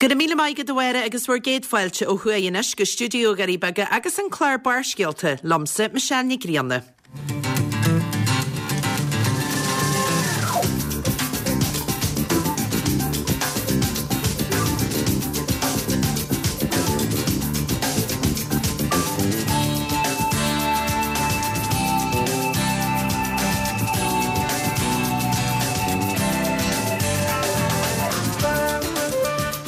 Go raibh míle maith agat a Mháire agus bhur gcéad fáilte ó thuaidh anois go stiúideo Dhoirí Beaga agus an clár Barrscéalta liomsa, Michelle Nic Grianna.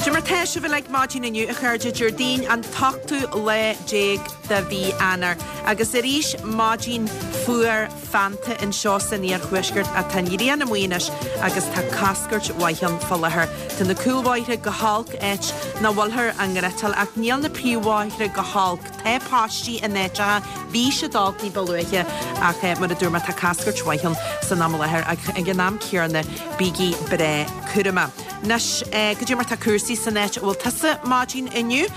Cad é mar tá sibh uilig maidin inniu, a chairde, Déardaoin an t-ochtú lá déag de mhí Eanáir. Agus arís maidin fuar feannta anseo san iarthuaisceart ach tá an ghrian amuigh anois agus tá coscairt mhaith ann fá láthair. Tá na cúlbhóithre go holc áit nach bhfuilthear á ngriotáil ach níl na príomhbhóithre go holc. Tá paistí in áiteacha, bhí siad olc ní ba luaithe ach mar a dúirt mé tá coscairt mhaith ann san am i láthair ach ag an am céanna bígí breá cúramach. Anois, cad é mar tá cúrsaí san áit a bhfuil tusa maidin inniu?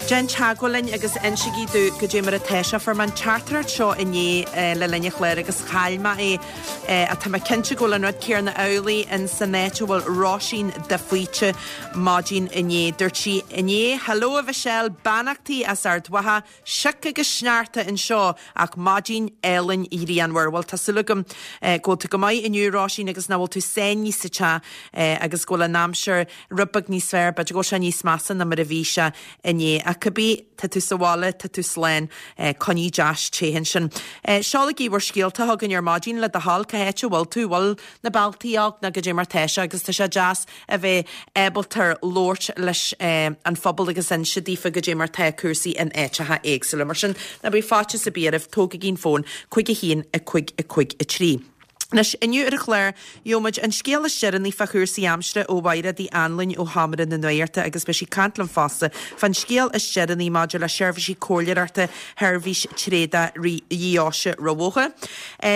Déan teagmháil linn agus insigí dúinn cad é mar atá sé. Fuair mé an teachtaireacht seo inné le linn an chláir agus chaill mé é. Ach tá mé cinnte go bhfuil an rud céanna amhlaidh in san áit a bhfuil Róisín de Faoite maidin inné. Dúirt sí inné, Hello a Mhichelle, beannachtaí as Ard Mhacha. Sioc agus sneachta anseo ach maidin álainn ghrianmhar. Bhuel, tá súil agam go bhfuil tú go maith inniu, Róisín, agus nach bhfuil tú sáinnithe sa teach agus go bhfuil an aimsir rud beag níos fearr, b'fhéidir go bhfuil sé níos measa ná mar a bhí sé inné. Ach cibé, tá tú sa bhaile, tá tú slán, coinnigh deas te ansin. Seolaigí bhur scéalta chugainn ar maidin le do thoil, cá háit a bhfuil tú, bhfuil na bealtaí olc nó cad é mar tá sé agus tá sé deas a bheith ábalta labhairt leis an phobal agus inse daofa cad é mar tá cúrsaí in áiteacha éagsúla. Mar sin, ná bíodh faitíos ar bith oraibh, tógaigí an fón, 5 1 5 5 3. Anois, inniu ar an chlár, gheobhaimid an scéal is deireanaí fá chúrsaí aimsire ó Mhaighread Uí Anluain ó Sheomra na Nuachta agus beidh sí ag caint linn fosta fán scéal is deireanaí maidir le seirbhísí comhairleoireachta Sheirbhís Tréada Dheoise Rabharta.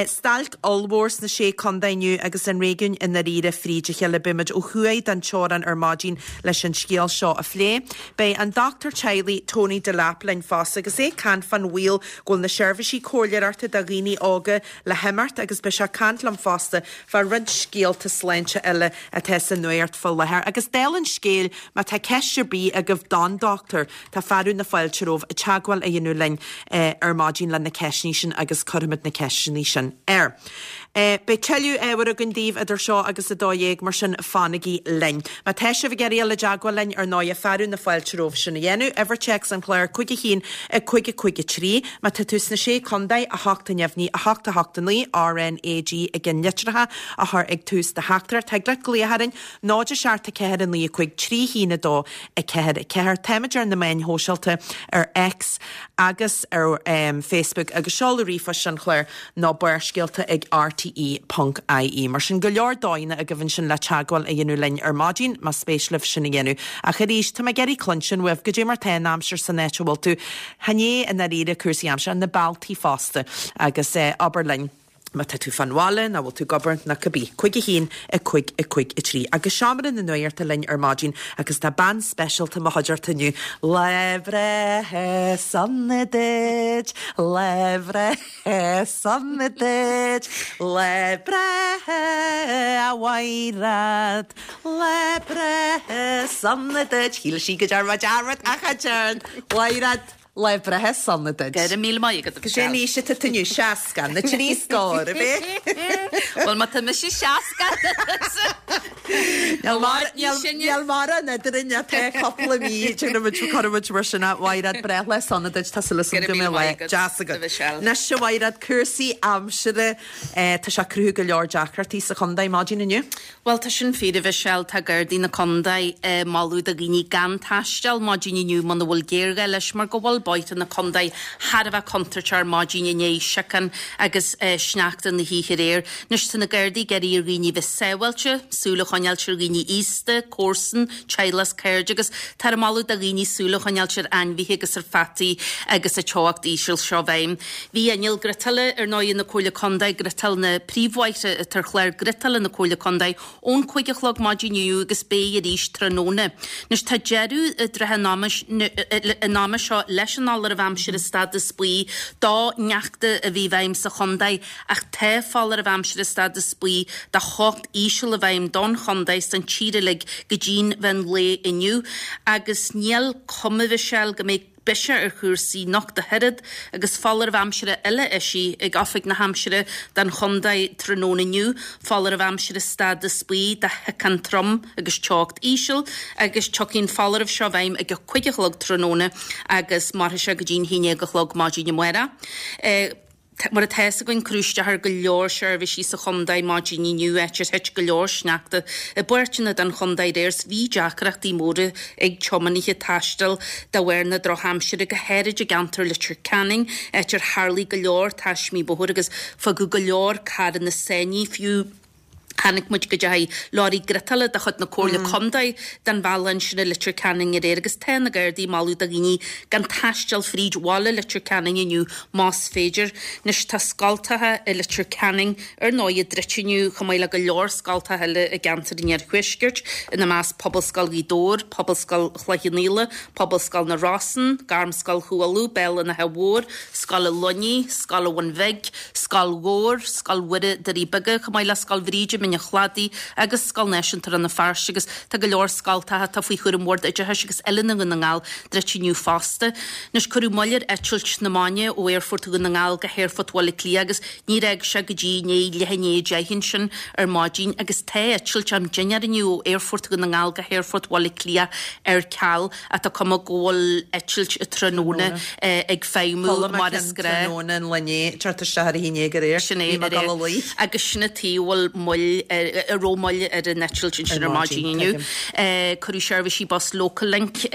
Stailc ollmhór sna Sé Contae inniu agus an réigiún i ndáiríre fríd a chéile. Beidh muid ó thuaidh den teorainn ar maidin leis an scéal seo a phlé. Beidh an dochtúir teaghlaigh Tony Delap linn fosta agus é ag caint fán bhaol go bhfuil na seirbhísí comhairleoireachta do dhaoine óga le himeacht agus beidh sé ag caint liom fosta fá roinnt scéalta sláinte eile atá sa nuacht fá láthair. Agus dála an scéil, má tá ceist ar bith agaibh don dochtúir, Tá fearadh na fáilte romhaibh teagmháil a dhéanamh linn ar maidin le na ceisteanna sin agus cuirfimid na ceisteanna sin air. Beidh tuilleadh ábhair againn daoibh idir seo agus 12:00, mar sin fanaigí linn. Má tá sibh ag iarraidh dul i dteagmháil linn, ar ndóighe, fearadh na fáilte romhaibh sin a dhéanamh. Uimhir téacs an chláir, 5 1 5 5 3. Má tá tú sna Sé Contae, 8 neamhní, 8 8 9, RNAG i gceannlitreacha a chur ag tús do theachtaireacht. Thig leat glaoch orainn, 0 7 4 9 5 3 1 2 4 4. Táimid ar na meáin shóisialta ar X agus ar Facebook agus seoladh ríomhphoist an chláir ná barrscéalta ag rte ponc ie. Mar sin go leor dóigheanna agaibh ansin le teagmháil a dhéanamh linn ar maidin más spéis libh sin a dhéanamh. Ach arís, tá mé ag iarraidh cluinstin uaibh goidé mar tá an aimsir san áit a bhfuil tú. Chan é i ndáiríre cúrsaí aimsire, na bealtaí fosta agus abair linn. Má tá tú fán bhaile, nó bhfuil tú ag obair, nó cibé. 5 1 5 5 3. Agus Seomra na Nuachta linn ar maidin agus tá bean speisialta i mo chuideachta inniu. Lá breithe sona duit, lá breithe sona duit, lá breithe a Mhaighread, lá breithe sona duit. Shíl sí go ndearn mé dearmad ach cha dtearn. Mhaighread. Lá breithe sona duit. Go raibh míle maith agat, a Cén aois atá tú inniu? 60, na trí scór, ab é? Bhuel, má tá mise 60, Níl mórán eadrainn ach tá cúpla mí, déanfaidh muid, cuirfidh muid mar sin é. A Mhaighread, breithlá sona duit, tá súil agam go mbeidh lá deas agat. Anois, a Mhaighread, cúrsaí aimsire, tá sé ag cruthú go leor deacrachtaí sa chontae maidin inniu. Bhuel, tá sin fíor, a Mhichelle. Tá Gardaí na Condae ag moladh do dhaoine gan taisteal maidin inniu muna bhfuil géarghá leis mar go bhfuil bóithre na condae thar a bheith contúirteach ar maidin i ndiaidh siocán agus sneachta na hoíche aréir. Anois tá na Gardaí ag iarraidh ar dhaoine bheith sábháilte, súil a choinneáilt ar dhaoine aosta, comharsan, teaghlach is cairde agus táthar ag moladh do dhaoine súil a choinneáilt ar ainmhithe agus ar pheataí agus an teocht íseal seo i bhfeidhm. Bhí inneall griotála ar ndóigh na Comhairle Condae ag griotáil na príomhbhóithre atá ar chlár griotála na Comhairle Condae ón 5 a chlog maidin inniu agus beidh arís tráthnóna. Anois tá deireadh i dtrátha an ama seo leis. leis an fholáireamh aimsire stádas buí do shneachta a bhí i bhfeidhm sa chontae ach tá foláireamh aimsire stádas buí do theocht íseal i bhfeidhm don chontae is don tír uilig go dtí'n mheán lae inniu agus níl cuma, a Mhichelle, go mbeidh biseach ar chúrsaí anocht ach oiread agus foláireamh aimsire eile eisithe ag Oifig na hAimsire don chontae tráthnóna inniu, foláireamh aimsire stádas buí do shiocain trom agus teocht íseal agus tiocfaidh an foláireamh seo i bhfeidhm ag a 5 a chlog tráthnóna agus mairfidh sé go dtí'n 11 a chlog maidin amárach. Mar atá fhios againn, cuireadh isteach ar go leor seirbhísí sa chontae maidin inniu, áit ar thit go leor sneachta i bpáirteanna den chontae aréir 's bhí deacrachtaí móra ag tiománaithe taisteal de bharr na drochaimsire, go háirid i gceantar Leitir Ceanainn, áit ar tharlaigh go leor taismí bóthair agus fágadh go leor carranna sáinnithe fiú. Chonaic muid go ndeachaigh leoraí griotála de chuid na Comhairle Contae den bhealach ansin i Leitir Ceanainn aréir agus tá na Gardaí ag moladh do dhaoine gan taisteal fríd bhaile Leitir Ceanainn inniu más féidir. Anois tá scoltacha i Leitir Ceanainn ar ndóigh druidte inniu chomh maith le go leor scoltacha eile i gceantar an Iarthuaiscirt, ina measc Pobalscoil Ghaoth Dobhair, Pobalscoil Chloich Cheann Fhaola, Pobalscoil na Rosann, Gairmscoil Chú Uladh, Béal an Átha Mhóir, Scoil an Luinnigh, Scoil an Bhun Bhig, Scoil Ghabhar, Scoil Mhuire, Doirí Beaga, chomh maith le Scoil Bhríde, Mín an Chladaigh agus Scoil Náisiúnta Rann na Feirste agus tá go leor scoltacha atá faoi chúram Bhord Oideachais agus Oiliúna Dhún na nGall druidte inniu fosta. Anois cuireadh moill ar eitilt na maidine ó Aerfort Dhún na nGall go hAerfort Bhaile Átha Cliath agus níor fhág sé go dtí i ndiaidh leath i ndiaidh 10 ansin ar maidin agus tá eitilt am dinnéar inniu ó Aerfort Dhún na nGall go hAerfort Bhaile Átha Cliath ar ceal. Ach tá cuma go bhfuil eitilt tráthnóna ag feidhmiú mar is gnách. Tráthnóna an lae inné, teacht isteach ar a haon déag aréir. Sin é, aréir. Agus sin an tuige a bhfuil moill, a raibh moill ar an eitilt ansin ar maidin inniu. Cuireadh seirbhísí bus Local Link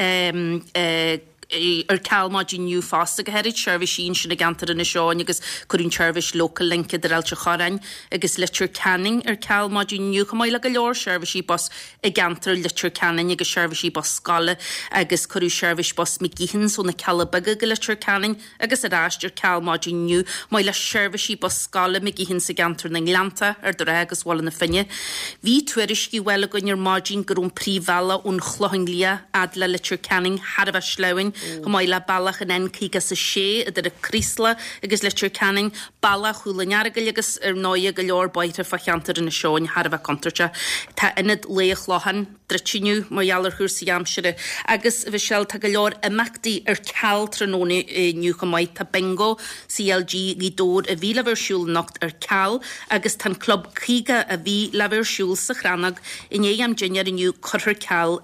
ar ceal maidin inniu fosta, go háirid seirbhísí ansin i gceantar Inis Eoghain agus cuireadh an tseirbhís Local Link idir Ailt an Chorráin agus Leitir Ceanainn ar ceal maidin inniu, chomh maith le go leor seirbhísí bus i gceantar Leitir Ceanainn agus seirbhísí bus scoile agus cuireadh seirbhís bus McGeehans ó na Cealla Beaga go Leitir Ceanainn agus ar ais ar ceal maidin inniu, maith le seirbhísí bus scoile McGeehans i gceantar na nGleannta, Ard an Rátha agus Bhaile na Finne. Bhí tuairiscí á bhfáil againn ar maidin go raibh an príomhbhealach ón Chlochán Liath fhad le Leitir Ceanainn thar a bheith sleamhain, chomh maith le bealach an N56 idir an Craoslach agus Leitir Ceanainn, Bealach Chúil an Earagail agus, ar ndóighe, go leor bóithre fá cheantar Inis Eoghain thar a bheith contúirteach. Tá Ionad Lae an Chlocháin druidte inniu mar gheall ar chúrsaí aimsire agus, a Mhichelle, tá go leor imeachtaí ar ceal tráthnóna inniu chomh maith. Tá Bingo CLG Ghaoth Dobhair a bhí le bheith ar siúl anocht ar ceal agus tá an Club 50 a bhí le bheith ar siúl sa Chrannóg i ndiaidh am dinnéir inniu curtha ar ceal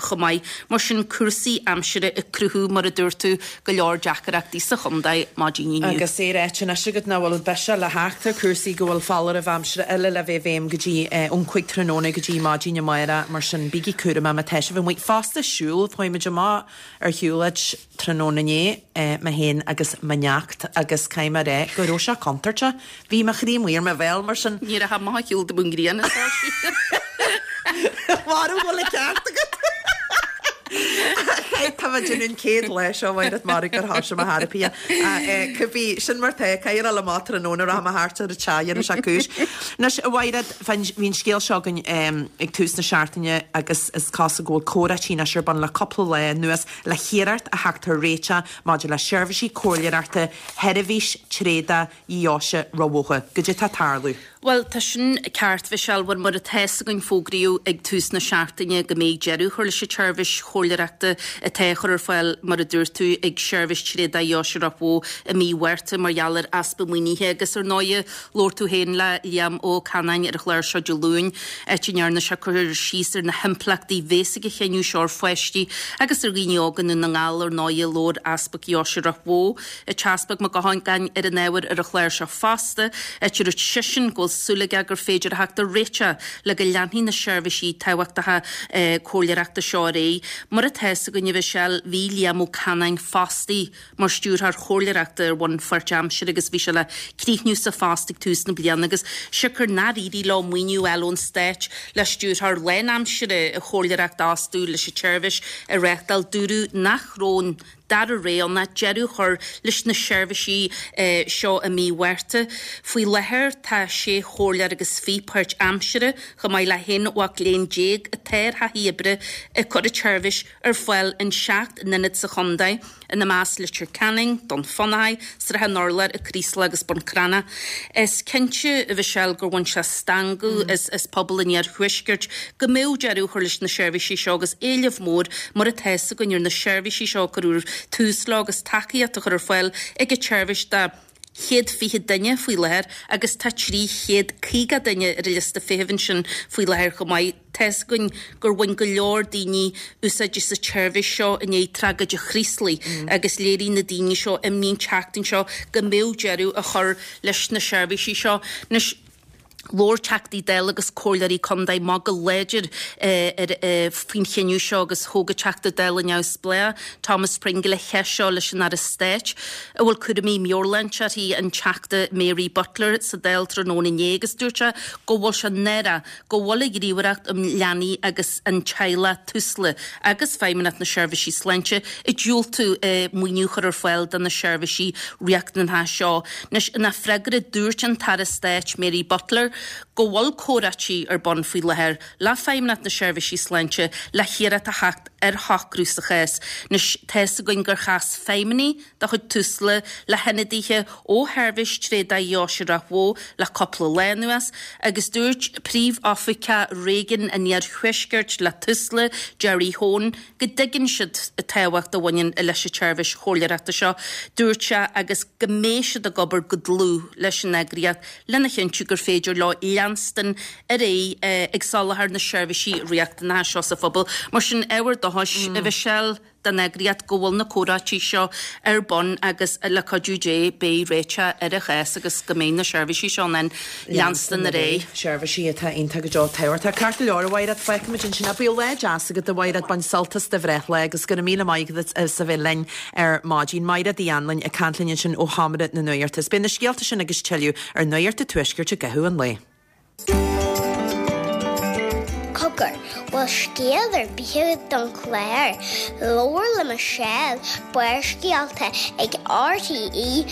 chomh maith. Mar sin, cúrsaí aimsire ag cruthú, mar a dúirt tú, go leor deacaireachtaí sa chontae maidin inniu. Agus é ráite anois agat nach bhfuil biseach le theacht ar chúrsaí, go bhfuil foláireamh aimsire eile le bheith i bhfeidhm go dtí ón 5 tráthnóna go dtí maidin amárach, mar sin bígí cúramach má tá sibh amuigh. Fosta siúl, chuaigh muid amach ar shiúlóid tráthnóna inné, mé féin agus mo neacht agus caithfidh mé a rá go raibh sé contúirteach. Bhí mo chroí amuigh ar mo bhéal, mar sin. Ní raibh amach ar shiúl de bhun grian is é. Mara bhfuil an ceart agat. Tá mé ag déanamh an chéad lá seo Mhaighread Mara gur thosaigh mo therapy. Cibé, sin mar tá, caithfidh a dhul amach tráthnóna rachaidh mé thart ar an teach dhéanfaidh sé cúis. Anois, a Mhaighread, bhí an scéal seo againn ag tús na seachtaine agus is cosúil go bhfuil comhráití anois ar bun le cúpla lá anuas le hiarracht a theacht ar réiteach maidir le seirbhísí comhairleoireachta Sheirbhís Tréada Dheoise Ráth Bhoth. Goidé tá ag tarlú? Bhuel, tá sin ceart, Mhichelle, bhuel, mar atá fhios againn fógraíodh ag tús na seachtaine go mbeidh deireadh á chur leis an tseirbhís chomhairleoireachta atá á chur ar fáil, mar a dúirt tú, ag Seirbhís Tréada Dheoise Ráth Bhoth i mí Mhárta mar gheall ar easpa maoinithe agus, ar ndóighe, labhair tú féin le Liam Ó Canáin ar an chlár seo Dé Luain, áit a ndearna sé cur síos ar na himpleachtaí a bhéas ag an chinneadh seo ar pháistí agus ar dhaoine óga i nDún na nGall, ar ndóighe, labhair Easpag Dheoise Ráth Bhoth. An tEaspag Mac Gabhann ar an ábhar ar an chlár seo fosta, áit a dúirt seisean go bhfuil súil aige gur féidir a theacht ar réiteach le go leanfaidh na seirbhísí tábhachtacha comhairleoireachta seo ar aghaidh. Mar atá fhios againn, a Mhichelle, bhí Liam Ó Canáin fostaithe mar stiúrthóir chomhairleoireachta ar bhonn pháirtaimsire agus bhí sé le críochnú sa phost ag tús na bliana agus siocair nár éirigh leo maoiniú a fháil ón Stát le stiúrthóir lánaimsire chomhairleoireachta a fhostú leis an tseirbhís a reáchtáil, dúradh nach raibh an. dara rogha ann ná deireadh a chur leis na seirbhísí seo i mí Mhárta. Faoi láthair tá sé chomhairleoir agus 20 páirt-aimsire, chomh maith le haon mhac léinn déag atá ar thaithí oibre ag cur an tseirbhís ar fáil in 7 n-ionad sa chontae, ina measc Leitir Ceanainn, Dún Fionnachaidh, Srath an Urláir, An Craoslach agus Bun Cranncha. Is cinnte, a Mhichelle, gur bhain sé stangadh as pobal an iarthuaiscirt go mbeadh deireadh á chur leis na seirbhísí seo agus éileamh mór mar atá fhios againn ar na seirbhísí seo a cuireadh tús leo agus tacaíocht á chur ar fáil ag an tseirbhís do 120 duine faoi láthair agus tá 350 duine ar an liosta feithimh ansin faoi láthair chomh maith. Tá fhios againn gur bhain go leor daoine úsáid as an tseirbhís seo i ndiaidh tragóid an Chraoslaigh agus léirigh na daoine seo imní an tseachtain seo go mbeadh deireadh á chur leis na seirbhísí seo. Anois, labhair Teachtaí Dála agus Comhairleoirí Contae amach go láidir faoin chinneadh seo agus thóg an Teachta Dála neamhspleách, Thomas Pringle an cheist seo leis an Aire Stáit a bhfuil cúraimí meabhairshláinte uirthi, an Teachta Mary Butler, sa Dáil tráthnóna inné agus dúirt sé go bhfuil sé náireach go bhfuil an Ghníomhaireacht um Leanaí agus an Teaghlach, Tusla, agus Feidhmeannacht na Seirbhísí Sláinte ag diúltú maoiniú a chur ar fáil do na seirbhísí riachtanacha seo. Anois, ina freagra, dúirt an tAire Stáit Mary Butler go bhfuil comhráití ar bun faoi láthair le Feidhmeannacht na Seirbhísí Sláinte le hiarracht a theacht ar shocrú sa chás. Anois, tá fhios againn gur chas feidhmeannaigh de chuid Tusla le hionadaithe ó Sheirbhís Tréadach Dheoise Ráth Bhoth le cúpla lá anuas agus dúirt Príomhoifigeach Réigiún an Iarthuaiscirt le Tusla, Gerry Hone, go dtuigeann siad an tábhacht a bhaineann leis an tseirbhís chomhairleoireachta seo. Dúirt sé agus go mbeidh siad ag obair go dlúth leis an eagraíocht lena chinntiú gur féidir leo leanstan ar aghaidh ag soláthar na seirbhísí riachtanacha seo sa phobal. Mar sin, ábhar dóchais, a Mhichelle. don eagraíocht go bhfuil na comhráití seo ar bun agus le cuidiú Dé beidh réiteach ar an chás agus go mbeidh na seirbhísí seo in ann leanstan ar aghaidh. Seirbhísí atá iontach go deo tábhachtach. Ceart go leor, a Mhaighread, fágfaimid ansin é. Bíodh lá deas agat, a Mhaighread, bain sult as do bhreithlá agus go raibh míle maith agat as a bheith linn ar maidin. Maighread Uí Anluain ag caint linn ansin ó Sheomra na Nuachta. Is beidh na scéalta sin agus tuilleadh ar Nuacht an Tuaiscirt i gcaitheamh an lae. Cogar, bhfuil scéal ar bith agat don chlár? Labhair le Michelle, Barrscéalta ag RTE.ie.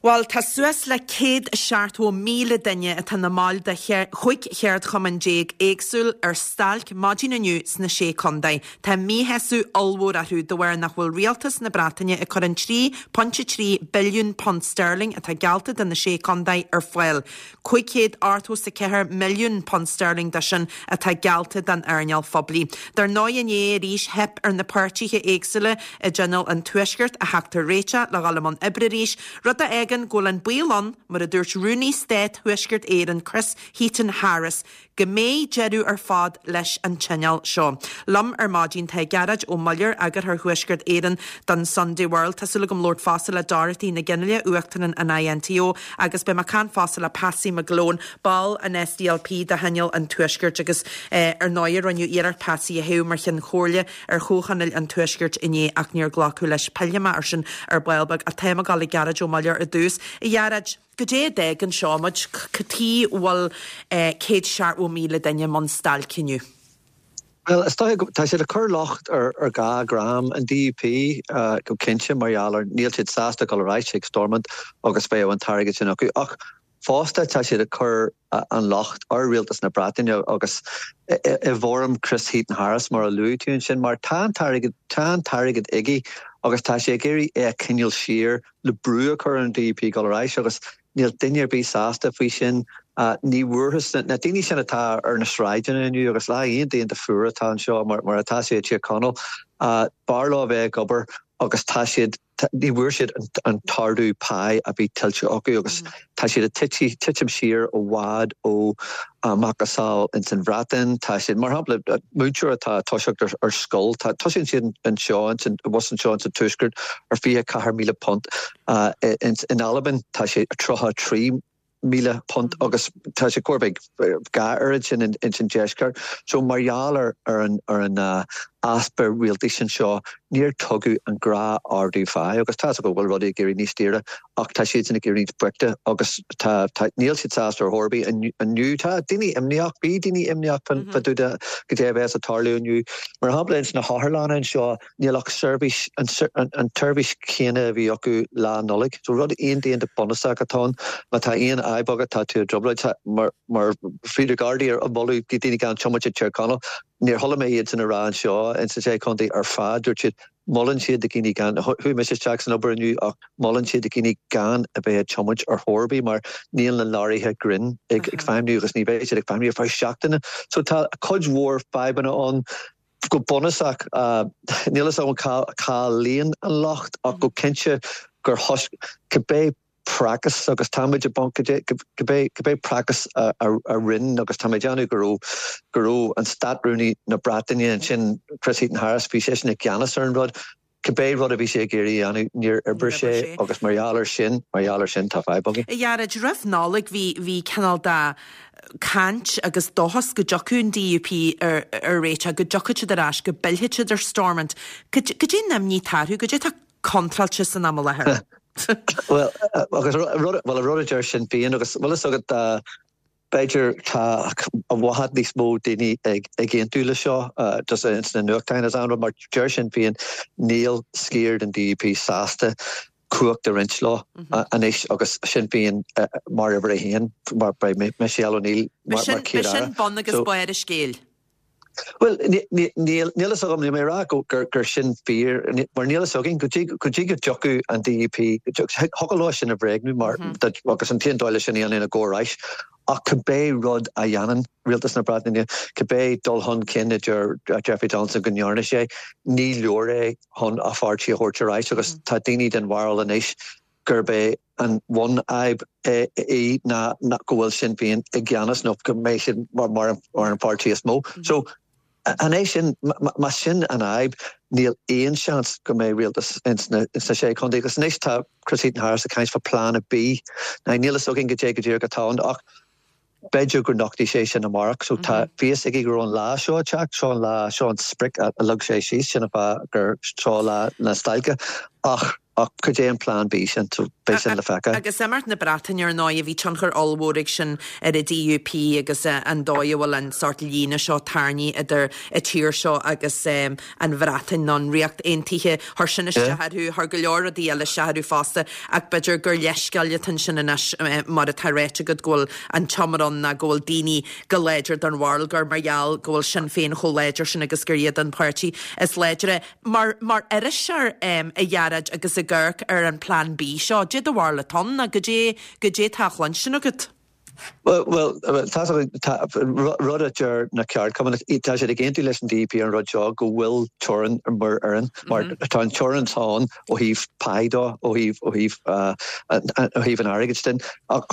Bhuel, tá suas le 170,000 duine atá ina mbaill de 15 cheardchumann éagsúil ar stailc maidin inniu sna Sé Contae. Tá míshásamh ollmhór orthu de bharr nach bhfuil rialtas na Breataine ag cur an £3.3 billiún sterling atá geallta do na Sé Contae ar fáil. £584 milliún sterling de sin atá geallta don earnáil phoiblí. Dar ndóigh inné arís theip ar na páirtithe éagsúla i dTionól an Tuaiscirt a theacht ar réiteach le dhul i mbun oibre arís, rud a fhágann go bhfuil an baol ann, mar a dúirt Rúnaí Stáit Thuaisceart Éireann Chris Heaton-Harris, Go mbeidh deireadh ar fad leis an Tionól seo. Liom ar maidin tá Gearóid Ó Muilleoir, Eagarthóir Thuaisceart Éireann don Sunday World. Tá súil agam labhairt fosta le Dorothy Nic Fhionnghaile, Uachtarán an INTO, agus beidh mé ag caint fosta le Patsy McGlone, ball an SDLP do Thionól an Tuaiscirt agus ar ndóigh rinneadh iarracht Patsy a thoghadh mar Cheann Comhairle ar Chomhthionól an Tuaiscirt inné ach níor glacadh leis. Pillfidh mé ar sin ar ball beag ach táim ag dul ag Gearóid Ó Muilleoir ar dtús. A Ghearóid. Goidé a d'fhág anseo muid? Cad chuige a bhfuil 170,000 duine i mbun stailce inniu? Bhuel, is dóiche go, tá siad ag cur locht ar dhá dhream, an DUP go cinnte mar gheall ar níl siad sásta dul ar ais chuig Stormont agus bheadh an t-airgead sin acu ach fosta tá siad ag cur an locht ar Rialtas na Breataine agus i bhfoirm Chris Heaton-Harris mar a luaigh tú ansin mar tá an t-airgead, tá an t-airgead aige agus tá sé ag iarraidh é a choinneáil siar le brú a chur ar an DUP dul ar ais agus níl duine ar bith sásta faoi sin. Ní bhfuarthas na daoine sin atá ar na sráideanna inniu agus lá iontach iontach fuar atá anseo mar atá sé i Tír Chonaill. B'fhearr leo a bheith ag obair agus tá siad, ní bhfuair siad an t-ardú pá a bhí tuillte acu agus tá siad ag titim siar i bhfad ó a macasamhail ins an Bhreatain. Tá siad, mar shampla, múinteoir atá ag toiseacht ar scoil, tá, tosaíonn siad anseo, abhus anseo ins an Tuaisceart ar £24,000. In Albain tá sé £33,000 agus tá sé chóir a bheith dhá oiread sin ins an Deisceart. So mar gheall ar an easpa rialtais anseo. Níor tugadh an gnáth-ardú pá agus tá a fhios agam go bhfuil rudaí ag éirí níos daoire ach tá siadsan ag éirí níos boichte agus tá, tá, níl siad sásta ar chor ar bith inniu. Tá daoine imníoch, bhí daoine imníoch fá dtaobh de goidé a bheas ag tarlú inniu. Mar shampla ins na hotharlanna anseo níl ach seirbhís, an, an tseirbhís chéanna a bhí acu lá Nollag. So rud iontach iontach bunúsach atá ann. Má tá aon fhadhb agat tá tú i dtrioblóid. Tá, mar, mar bhí na Gardaí ag moladh do daoine gan tiomáint i Tír Chonaill. Níor chuala mé iad sin a rá anseo ins na Sé Chontae ar fad. Dúirt siad, molann siad do dhaoine gan, chuaigh mise isteach san obair inniu ach molann siad do dhaoine gan a bheith ag tiomáint ar chor ar bith mar níl na leoraithe grinn ag feidhmniú agus ní bheidh siad ag feidhmniú ar feadh seachtaine. So tá cuid mhór fadhbanna ann. Go bunúsach, níl fhios agam cá luíonn an locht ach go cinnte gur thois, cibé praghas agus táimid i bponc cibé cibé praghas a rinne agus tá mé ag déanamh go raibh go raibh an Stát-Rúnaí na Breataine ansin Chris Heaton-Harris bhí seisean i gceannas ar an rud cibé rud a bhí sé ag iarraidh a dhéanamh níor oibrigh sé agus mar gheall ar sin mar gheall ar sin tá fadhb againn. A Ghearóid, roimh Nollaig bhí bhí cineál de caint agus dóchas go dtiocfadh an DUP ar ar réiteach, go dtiocfadh siad ar ais, go bpillfeadh siad ar Stormont. Goidé an imní atá orthu, goidé atá contráilte san am i láthair. Bhuel, agus rud, bhuel, an rud a deir Sinn Féin, agus bhfuil fhios agat, b'fhéidir tá i bhfad níos mó daoine ag ag aontú le seo, just ins na nuachtáin is an rud, mar deir Sinn Féin níl sciar den DUP sásta cumhacht a roinnt leo anois agus Sinn Féin mar uimhir a haon, mar beidh Michelle O'Neill mar Chéad-Aire. B'shin bun agus barr an scéil. Bhuel, níl fhios agam, níl mé ag rá gur sin fíor, mar níl fhios againn, go dtí go dtiocfadh an DUP, thiocfadh leo sin a bhréagnú mar, agus an t-aon dóigh le sin a dhéanamh ná dul ar ais, ach cibé rud a dhéanann Rialtas na Breataine, cibé dul chun cinn a deir Jeffrey Donaldson go ndearna sé, ní leor é chun a pháirtí a thabhairt ar ais agus tá daoine den bharúil anois gurb é an bhunfhadhb í ná go bhfuil Sinn Féin i gceannas nó go mbeidh siad mar an pháirtí is mó. So, an é sin, más sin an fhadhb, níl aon seans go mbeidh rialtas ins na Sé Chontae. Agus anois tá Chris Heaton-Harris ag caint fá Plean B. Now, níl fhios againn goidé go díreach atá ann ach b'fhéidir go nochtfaidh sé sin amárach. So tá fhios aige go raibh an lá seo ag teacht, seo an lá, seo an sprioc a leag sé síos, sin an fáth gur seo lá na stailce. Ach, ach cad é an plean B sin? So beidh sin le feiceáil. Agus imeacht na Breataine ar ndóigh, bhí tionchar ollmhór ag sin ar an DUP agus an dóigh a bhfuil an sórt líne seo tarraingthe idir an tír seo agus an Bhreatain nó an Ríocht Aontaithe. Chuir sin isteach orthu, chuir go leor rudaí eile isteach orthu fosta ach b'fhéidir gur leithscéal atá ansin anois mar atá ráite agat go bhfuil an t-iomrá ann ná go bhfuil daoine go láidir den bharúil gur mar gheall go bhfuil Sinn Féin chomh láidir sin agus gur iad an páirtí is láidre. Mar mar iriseoir a Ghearóid agus ag amharc ar an Plean B seo, goidé do bharúil atá ann ná goidé goidé atá á chluinstin agat? Bhuel, tá rud a deir na ceardchumainn, tá siad ag aontú leis an DUP ar an rud seo go bhfuil teorainn Muir Éireann, mar tá an teorainn atá ann ó thaobh pá de, ó thaobh ó thaobh ó thaobh an airgid sin. Ach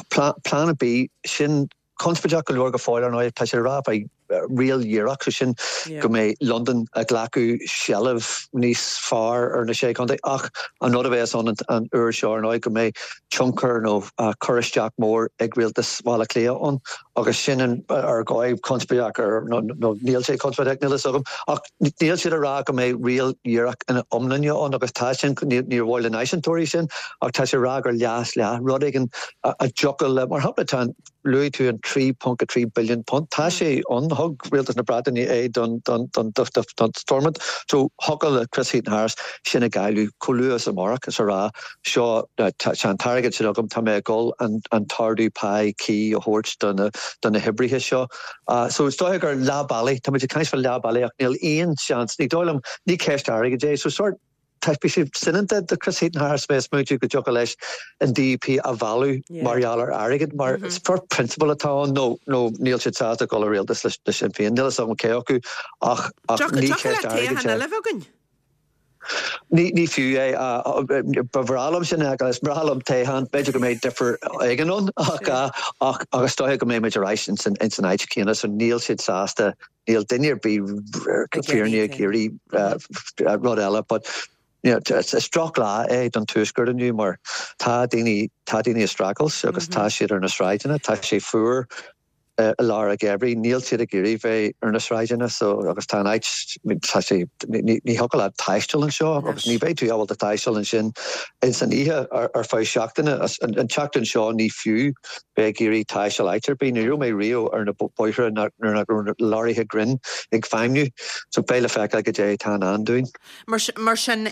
Plean B, sin conspóideach go leor go fóill ar ndóigh, tá siad ag rá beidh riail dhíreach, so sin go mbeidh Londain ag glacadh seilbh níos fearr ar na Sé Chontae ach an rud a bheas ann an uair seo ar ndóigh go mbeidh tionchar nó cur isteach mór ag rialtas Bhaile Átha Cliath ann agus sin an ar dhóigh conspóideach ar nó níl sé conspóideach níl fhios agam ach níl siad ag rá go mbeidh riail dhíreach ina iomláine ann agus tá sin níor mhaith le náisiúntóirí sin ach tá siad ag rá gur leath is leath rud éigin a dtiocfadh le mar shampla tá an Luaigh tú an £3.3 billiún. Tá sé ann. Thug Rialtas na Breataine é don Stormont. So thiocfadh le Chris Heaton-Harris sin a dháileadh chomh luath is amárach is a rá seo, tá an t-airgead sin agam, tá mé ag dul an t-ardú pá cuí a thabhairt do na hoibrithe seo. So is dócha gur leath bealaigh, tá muid ag caint fá leath bealaigh ach níl aon seans, ní dóigh liom, ní ceist airgid é. So sort. Tá sé soineanta do Chris Heaton-Harris bheith ag smaointiú go dtiocfadh leis an DUP a mhealladh mar gheall ar airgead, mar is sórt prionsabal atá ann nó nó níl siad sásta dul i rialtas le Sinn Féin. Níl fhios agam cé acu ach ach ní ceist airgid é. Ní ní fiú é. Ba bhreá liom sin a fheiceáil. Is breá liom toghchán. B'fhéidir go mbeidh difear éigin ann ach ach ach is dóiche go mbeidh muid ar ais ins an ins an áit chéanna so níl siad sásta Níl duine ar bith fírinne ag iarraidh rud eile but you know is droch lá é don Tuaisceart inniu mar tá daoine tá daoine ag streachailt agus tá siad ar na sráideanna, tá sé fuar. I lár an gheimhridh, níl siad ag iarraidh bheith ar na sráideanna so agus tá an áit, tá sé, ní thiocfadh leat taisteal anseo agus ní bheidh tú ábalta taisteal ansin ins an oíche ar feadh seachtaine. An tseachtain seo ní fiú bheith ag iarraidh taisteal áit ar bith. Ní raibh mé riamh ar na bóithre nuair nach raibh na leoraithe grinn ag feidhmiú so beidh le feiceáil goidé atá i ndán dúinn. Mar sin,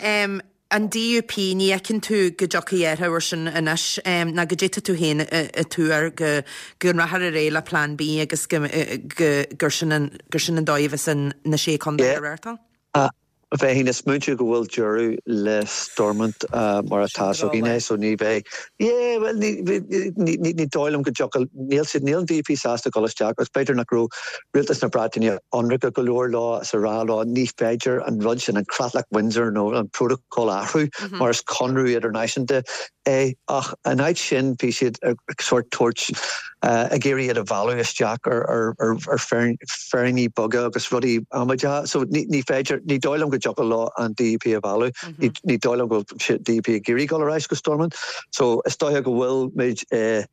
An DUP, ní fheiceann tú go dtiocfaidh athrú air sin anois, ná goidé tá tú féin ag tuar go go rachfar ar aghaidh le Plean B agus go gur sin an gur sin an dóigh a bheas an na Sé Contae á reáchtáil? Bheinn ag smaointiú go bhfuil deireadh le Stormont mar atá againn é so ní bheidh yeah bhuel ní ní ní dóigh liom go dtiocfadh níl siad níl an DUP sásta dul isteach agus b'fhéidir nach raibh Rialtas na Breataine ionraic go leor leo is a rá leo ní féidir an rud sin, an Creatlach Windsor nó an Protocol a athrú mar is conradh idirnáisiúnta é. Ach in áit sin bhí siad ag sórt tabhairt, ag iarraidh iad a mhealladh isteach ar féiríní beaga agus rudaí amaideacha. So ní féidir, ní dóigh liom go dtiocfadh leo an DUP a mhealladh. Ní dóigh liom go bhfuil DUP ag iarraidh dul ar ais go Stormont. So is dóiche go bhfuil muid i.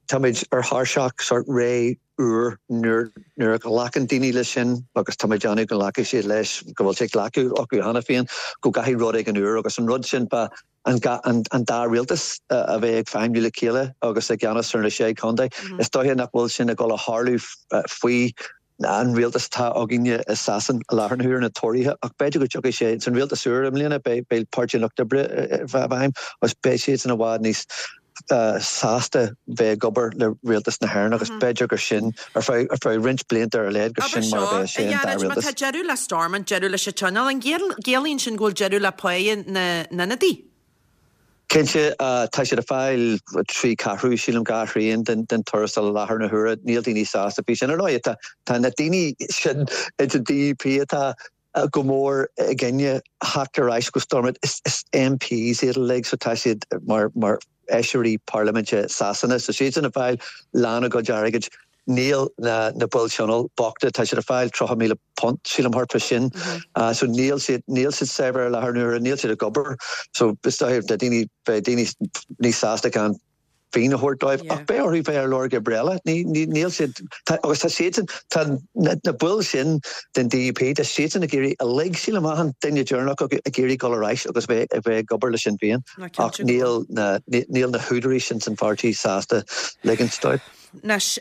Táimid ar thairseach sórt ré úr nuair nuair a ghlacann daoine leis sin, agus tá mé ag déanamh go nglacfaidh siad leis, go bhfuil sé glactha acu cheana féin, go gcaithfidh rud éigin úr agus an rud sin ba an an dá rialtas a bheith ag feidhmiú le chéile agus i gceannas ar na sé chontae. Is dóiche nach bhfuil sin ag dul a tharlú faoi an rialtas atá againne i Sasain i láthair na huaire, na Tóraithe, ach b'fhéidir go dtiocfaidh sé san rialtas úr i mbliana, beidh Páirtí an Lucht Oibre i bhfeidhm agus beidh siadsan i bhfad níos sásta bheith ag obair le rialtas na hÉireann agus b'fhéidir gur sin, ar feadh ar feadh roinnt blianta ar a laghad, gur Abair sin mar a seo, bheas a sé, an dá Ghearóid, má rialtas. tá deireadh le Stormont, deireadh leis an Tionól, an gciallaíonn sin go bhfuil deireadh le páighe na n-ionadaí? Cinnte, tá siad ag fáil 3 ceathrú, sílim, 2 thrian den tuarastal i láthair na huaire. Níl daoine sásta faoi sin. Ar ndóigh, tá na daoine sin ins an DUP atá go mór i gcoinne theacht ar ais go Stormont, is MPs iad uilig so tá siad mar fheisirí parlaiminte Sasana so siadsan ag fáil lán a gcuid airgid. Níl na na baill tionóil bochta, tá siad ag fáil £30,000, sílim, thart fá sin. So níl siad, níl siad saibhir i láthair na huaire, níl siad ag obair. So is dóigh beidh daoine, beidh daoine níos sásta gan pingin a thabhairt dóibh. Ach beidh orthu bheith ar lorg oibre eile. Ní, ní, níl siad, tá, agus tá siadsan, tá na, na baill sin den DUP, tá siadsan ag iarraidh uilig, sílim, achan duine deireanach acu ag iarraidh dul ar ais agus bheith, bheith ag obair le Sinn Féin. Ach níl na, níl na húdaráis sin san pháirtí sásta ligint dóibh. Anois,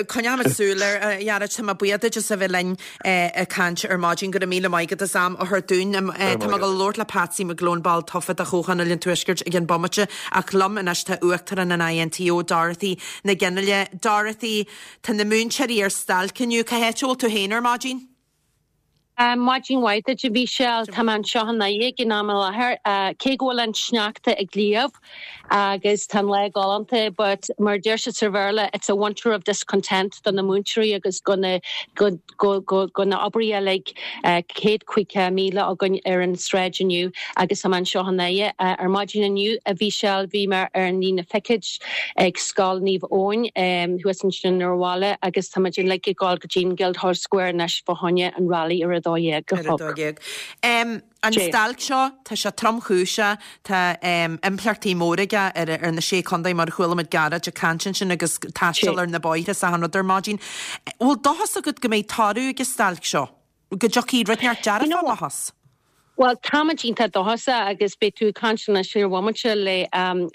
coinneoimid súil air, a Ghearóid. Tá mé buíoch duit as a bheith linn ag caint ar maidin. Go raibh míle maith agat as am a thabhairt dúinn. Tá mé ag dul labhairt le Patsy McGlone, ball tofa de Chomhthionól an Tuaiscirt i gceann bomaite, ach liom anois tá Uachtarán an INTO, Dorothy Nic Fhionnghaile. Dorothy, tá na múinteoirí ar stailc inniu. Cá háit a bhfuil tú féin ar maidin? Maidin mhaith duit, a Mhichelle. Tá mé anseo i nDoire ag an am i láthair. Cé go bhfuil an sneachta ag luíomh agus tá an lá galánta but mar a deir siad sa Bhéarla it's a winter of discontent do na múinteoirí agus go na go go go go na oibrithe uilig. 150,000 againn ar an sráid inniu agus tá mé anseo i nDoire. Ar maidin inniu, a Mhichelle, bhí mé ar an líne phicéid ag Scoil Naomh Eoin thuas ansin i lár an bhaile agus táimid uilig ag dul go dtí an Guildhall Square anois fá choinne an rally ar a 12 a Ar a chlog. 12. An stailc seo, tá sé tromchúiseach, tá impleachtaí móra aige ar ar na Sé Chontae mar a chuala muid Gearóid ag caint ansin agus taisteal ar na bóithre is achan rud ar maidin. Bhfuil dóchas agat go mbeidh toradh ag an stailc seo? Go dtiocfaidh rud inteacht dearfach amach as? Bhuel, táimid iontach dóchasach agus beidh tú ag caint anois ar bhomaite le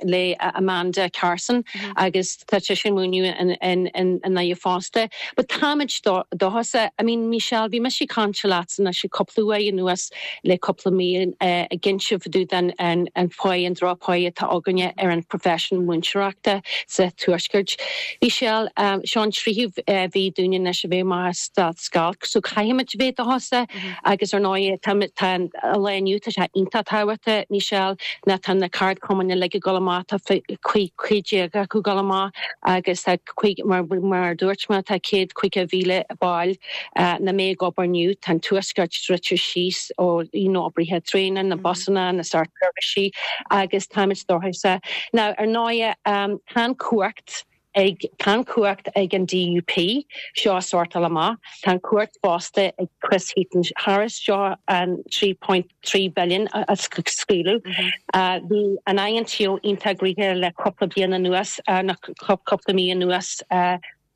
le Amanda Carson agus tá sise ag múineadh in i nDoire fosta. But táimid dóchasach. I mean, Michelle, bhí mise ag caint leatsa anois cúpla uair anuas le cúpla mí ag inse fá dtaobh den an pháigh, an drochpháigh atá againne ar an profession múinteoireachta sa Tuaisceart. Michelle, seo an tríú mhí dúinn anois a bheith amach as stailc, so caithfimid a bheith dóchasach. Agus ar ndóigh, tá tá an lá inniu, tá sé iontach tábhachtach, Michelle, ná tá na ceardchumainn uilig ag dul amach, tá 15 acu ag dul amach agus tá mar mar a dúirt mé, tá 150,000 ball nach mbeidh ag obair inniu, tá an Tuaisceart druidte síos ó you know oibrithe traenach, na busanna, na státseirbhísí agus táimid dóchasach. Now ar ndóigh, tá an chumhacht ag, tá an chumhacht ag an DUP seo a shórtáil amach. Tá an chumhacht fosta ag Chris Heaton Harris seo an 3.3 billion a scaoileadh. Bhí an INTO iontach gnoitheach le cúpla bliain anuas, nó cúpla mí anuas.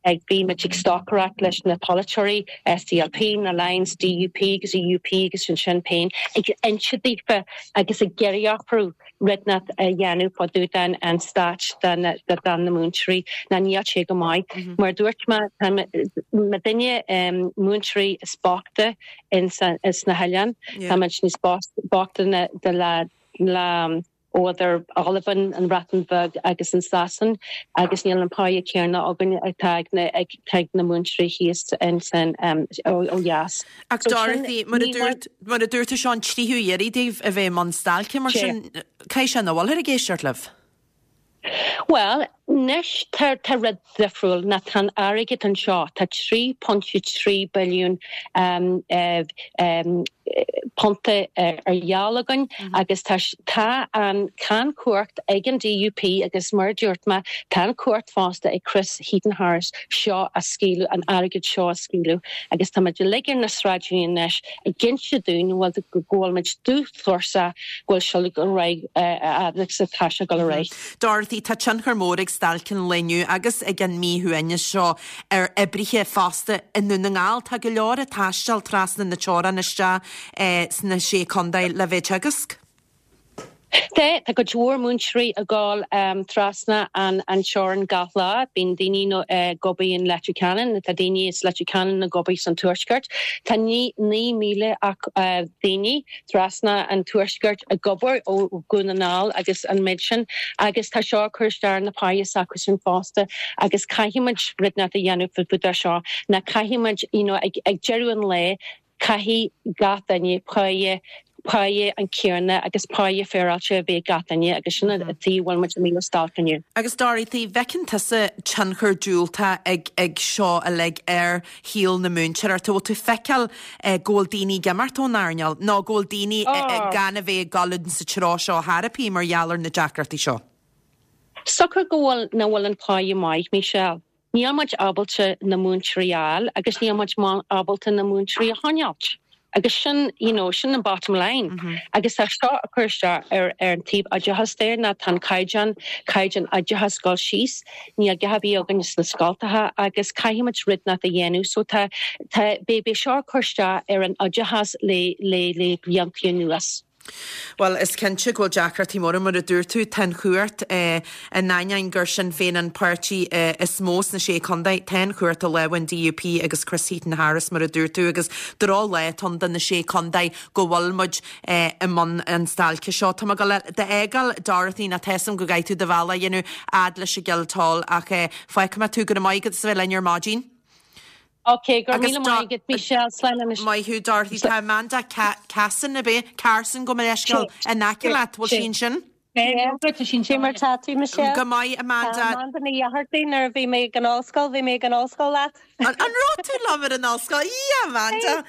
Ag bhí muid ag stocaireacht leis na polaiteoirí, SDLP, na Alliance, DUP agus UUP agus an Sinn Féin, ag inse daofa agus ag iarraidh orthu rud inteacht a dhéanamh fá dtaobh den an stáit do na múinteoirí ná níl sé go maith. Mar a dúirt mé, tá muidinne múinteoirí is bochta ins na hoileáin, tá muid níos bochta ná le ó idir Albain, an Bhreatain Bheag agus an Sasain agus níl an páighe céanna againn atá ag na ag ag na múinteoirí thíos ansin ó dheas. Ach Dorothy, mar a dúirt mar a dúirt tú seo an tríú iarraidh daoibh a bheith i mbun stailce mar sin caithfidh sé nach bhfuilthear ag éisteacht libh? Bhuel, anois tá tá rud difriúil ná tá an airgead anseo, tá 3.3 billiún punta ar fháil againn agus tá tá an tá an chumhacht ag an DUP agus mar a dúirt mé tá an chumhacht fosta ag Chris Heaton-Harris seo a scaoileadh, an airgead seo a scaoileadh agus tá muid uilig ar na sráideanna anois ag inse dúinn bhfuil go bhfuil muid dubh-tuirseach go bhfuil seo ag dul ar aghaidh agus atá sé ag dul ar aghaidh. Dorothy, tá tionchar mór ag stailc an lae inniu agus ag an míshuaimhneas seo ar oibrithe fosta i nDún na nGall. Tá go leor ag taisteal trasna na teorann isteach sna Sé Contae le bheith ag teagasc. Tá, tá cuid mhór múinteoirí ag dul trasna an teorainn gach lá. Bíonn daoine ag obair in Leitir Ceanainn, tá daoine as Leitir Ceanainn ag obair san Tuaisceart. Tá 9,000 daoine trasna an Tuaiscirt ag obair ó Dhún na nGall agus an méid sin agus tá seo ag cur isteach ar na páighe s'acusan fosta agus caithfidh muid rud inteacht a dhéanamh fá dtaobh de seo ná caithfidh muid you know ag ag deireadh an lae caithfidh gach duine páighe páighe an céanna agus páighe féaráilte a bheith ag gach duine agus sin an tuige a bhfuil muid amuigh ar stailc inniu. Agus Dorothy, bhfeiceann tusa tionchar diúltach ag ag seo uilig ar shaol na múinteoireachta? Bhfuil tú ag feiceáil go bhfuil daoine ag imeacht ón earnáil nó go bhfuil daoine gan a bheith ag dul in sa treo seo thar a bith mar gheall ar na deacrachtaí seo? Siocair go bhfuil nach bhfuil an páighe maith, Michelle. Níl muid ábalta na múinteoirí a fháil agus níl muid ábalta na múinteoirí a choinneáilt. Agus sin, you know, sin an bottom line. Agus tá seo ag cur isteach ar ar an taobh oideachais de ná tá an caighdeán, caighdeán oideachais ag dul síos, níl a dhath ar bith againn sna scoltacha agus caithfidh muid rud inteacht a dhéanamh. So tá, tá, beidh, beidh seo ag cur isteach ar an oideachas le, le, le blianta anuas. Bhuel, is cinnte go bhfuil deacrachtaí móra, mar a dúirt tú, tá an chumhacht, in ainneoin gur Sinn Féin an páirtí is mó sna Sé Chontae, tá an chumhacht i lámha an DUP agus Chris Heaton-Harris, mar a dúirt tú, agus drochlá atá ann do na Sé Chontae go bhfuil muid i mbun an stailce seo. Tá mé ag dul d'fhágáil, Dorothy, nó tá 'fhios a'm go gcaithfidh tú do bhealach a dhéanamh fhad leis an gCill Tall, ach fágfaidh mé tú. Go raibh maith agat as a bheith linn ar maidin. Ok, go raibh míle maith agat, Michelle. Slán anois. Maith thú, Dorothy. Tá Amanda Casson, ab é? Carson, gabh mo leithscéal, in aice leat. Bhfuil sí ansin? Tá sí ansin. Mar tá tú, Michelle. Go maith, Amanda. Tá Amanda Ní Fhathartaigh, nuair a bhí mé ag an ollscoil, bhí mé ag an ollscoil leat. An raibh tú liom ar an ollscoil? Ia, Amanda.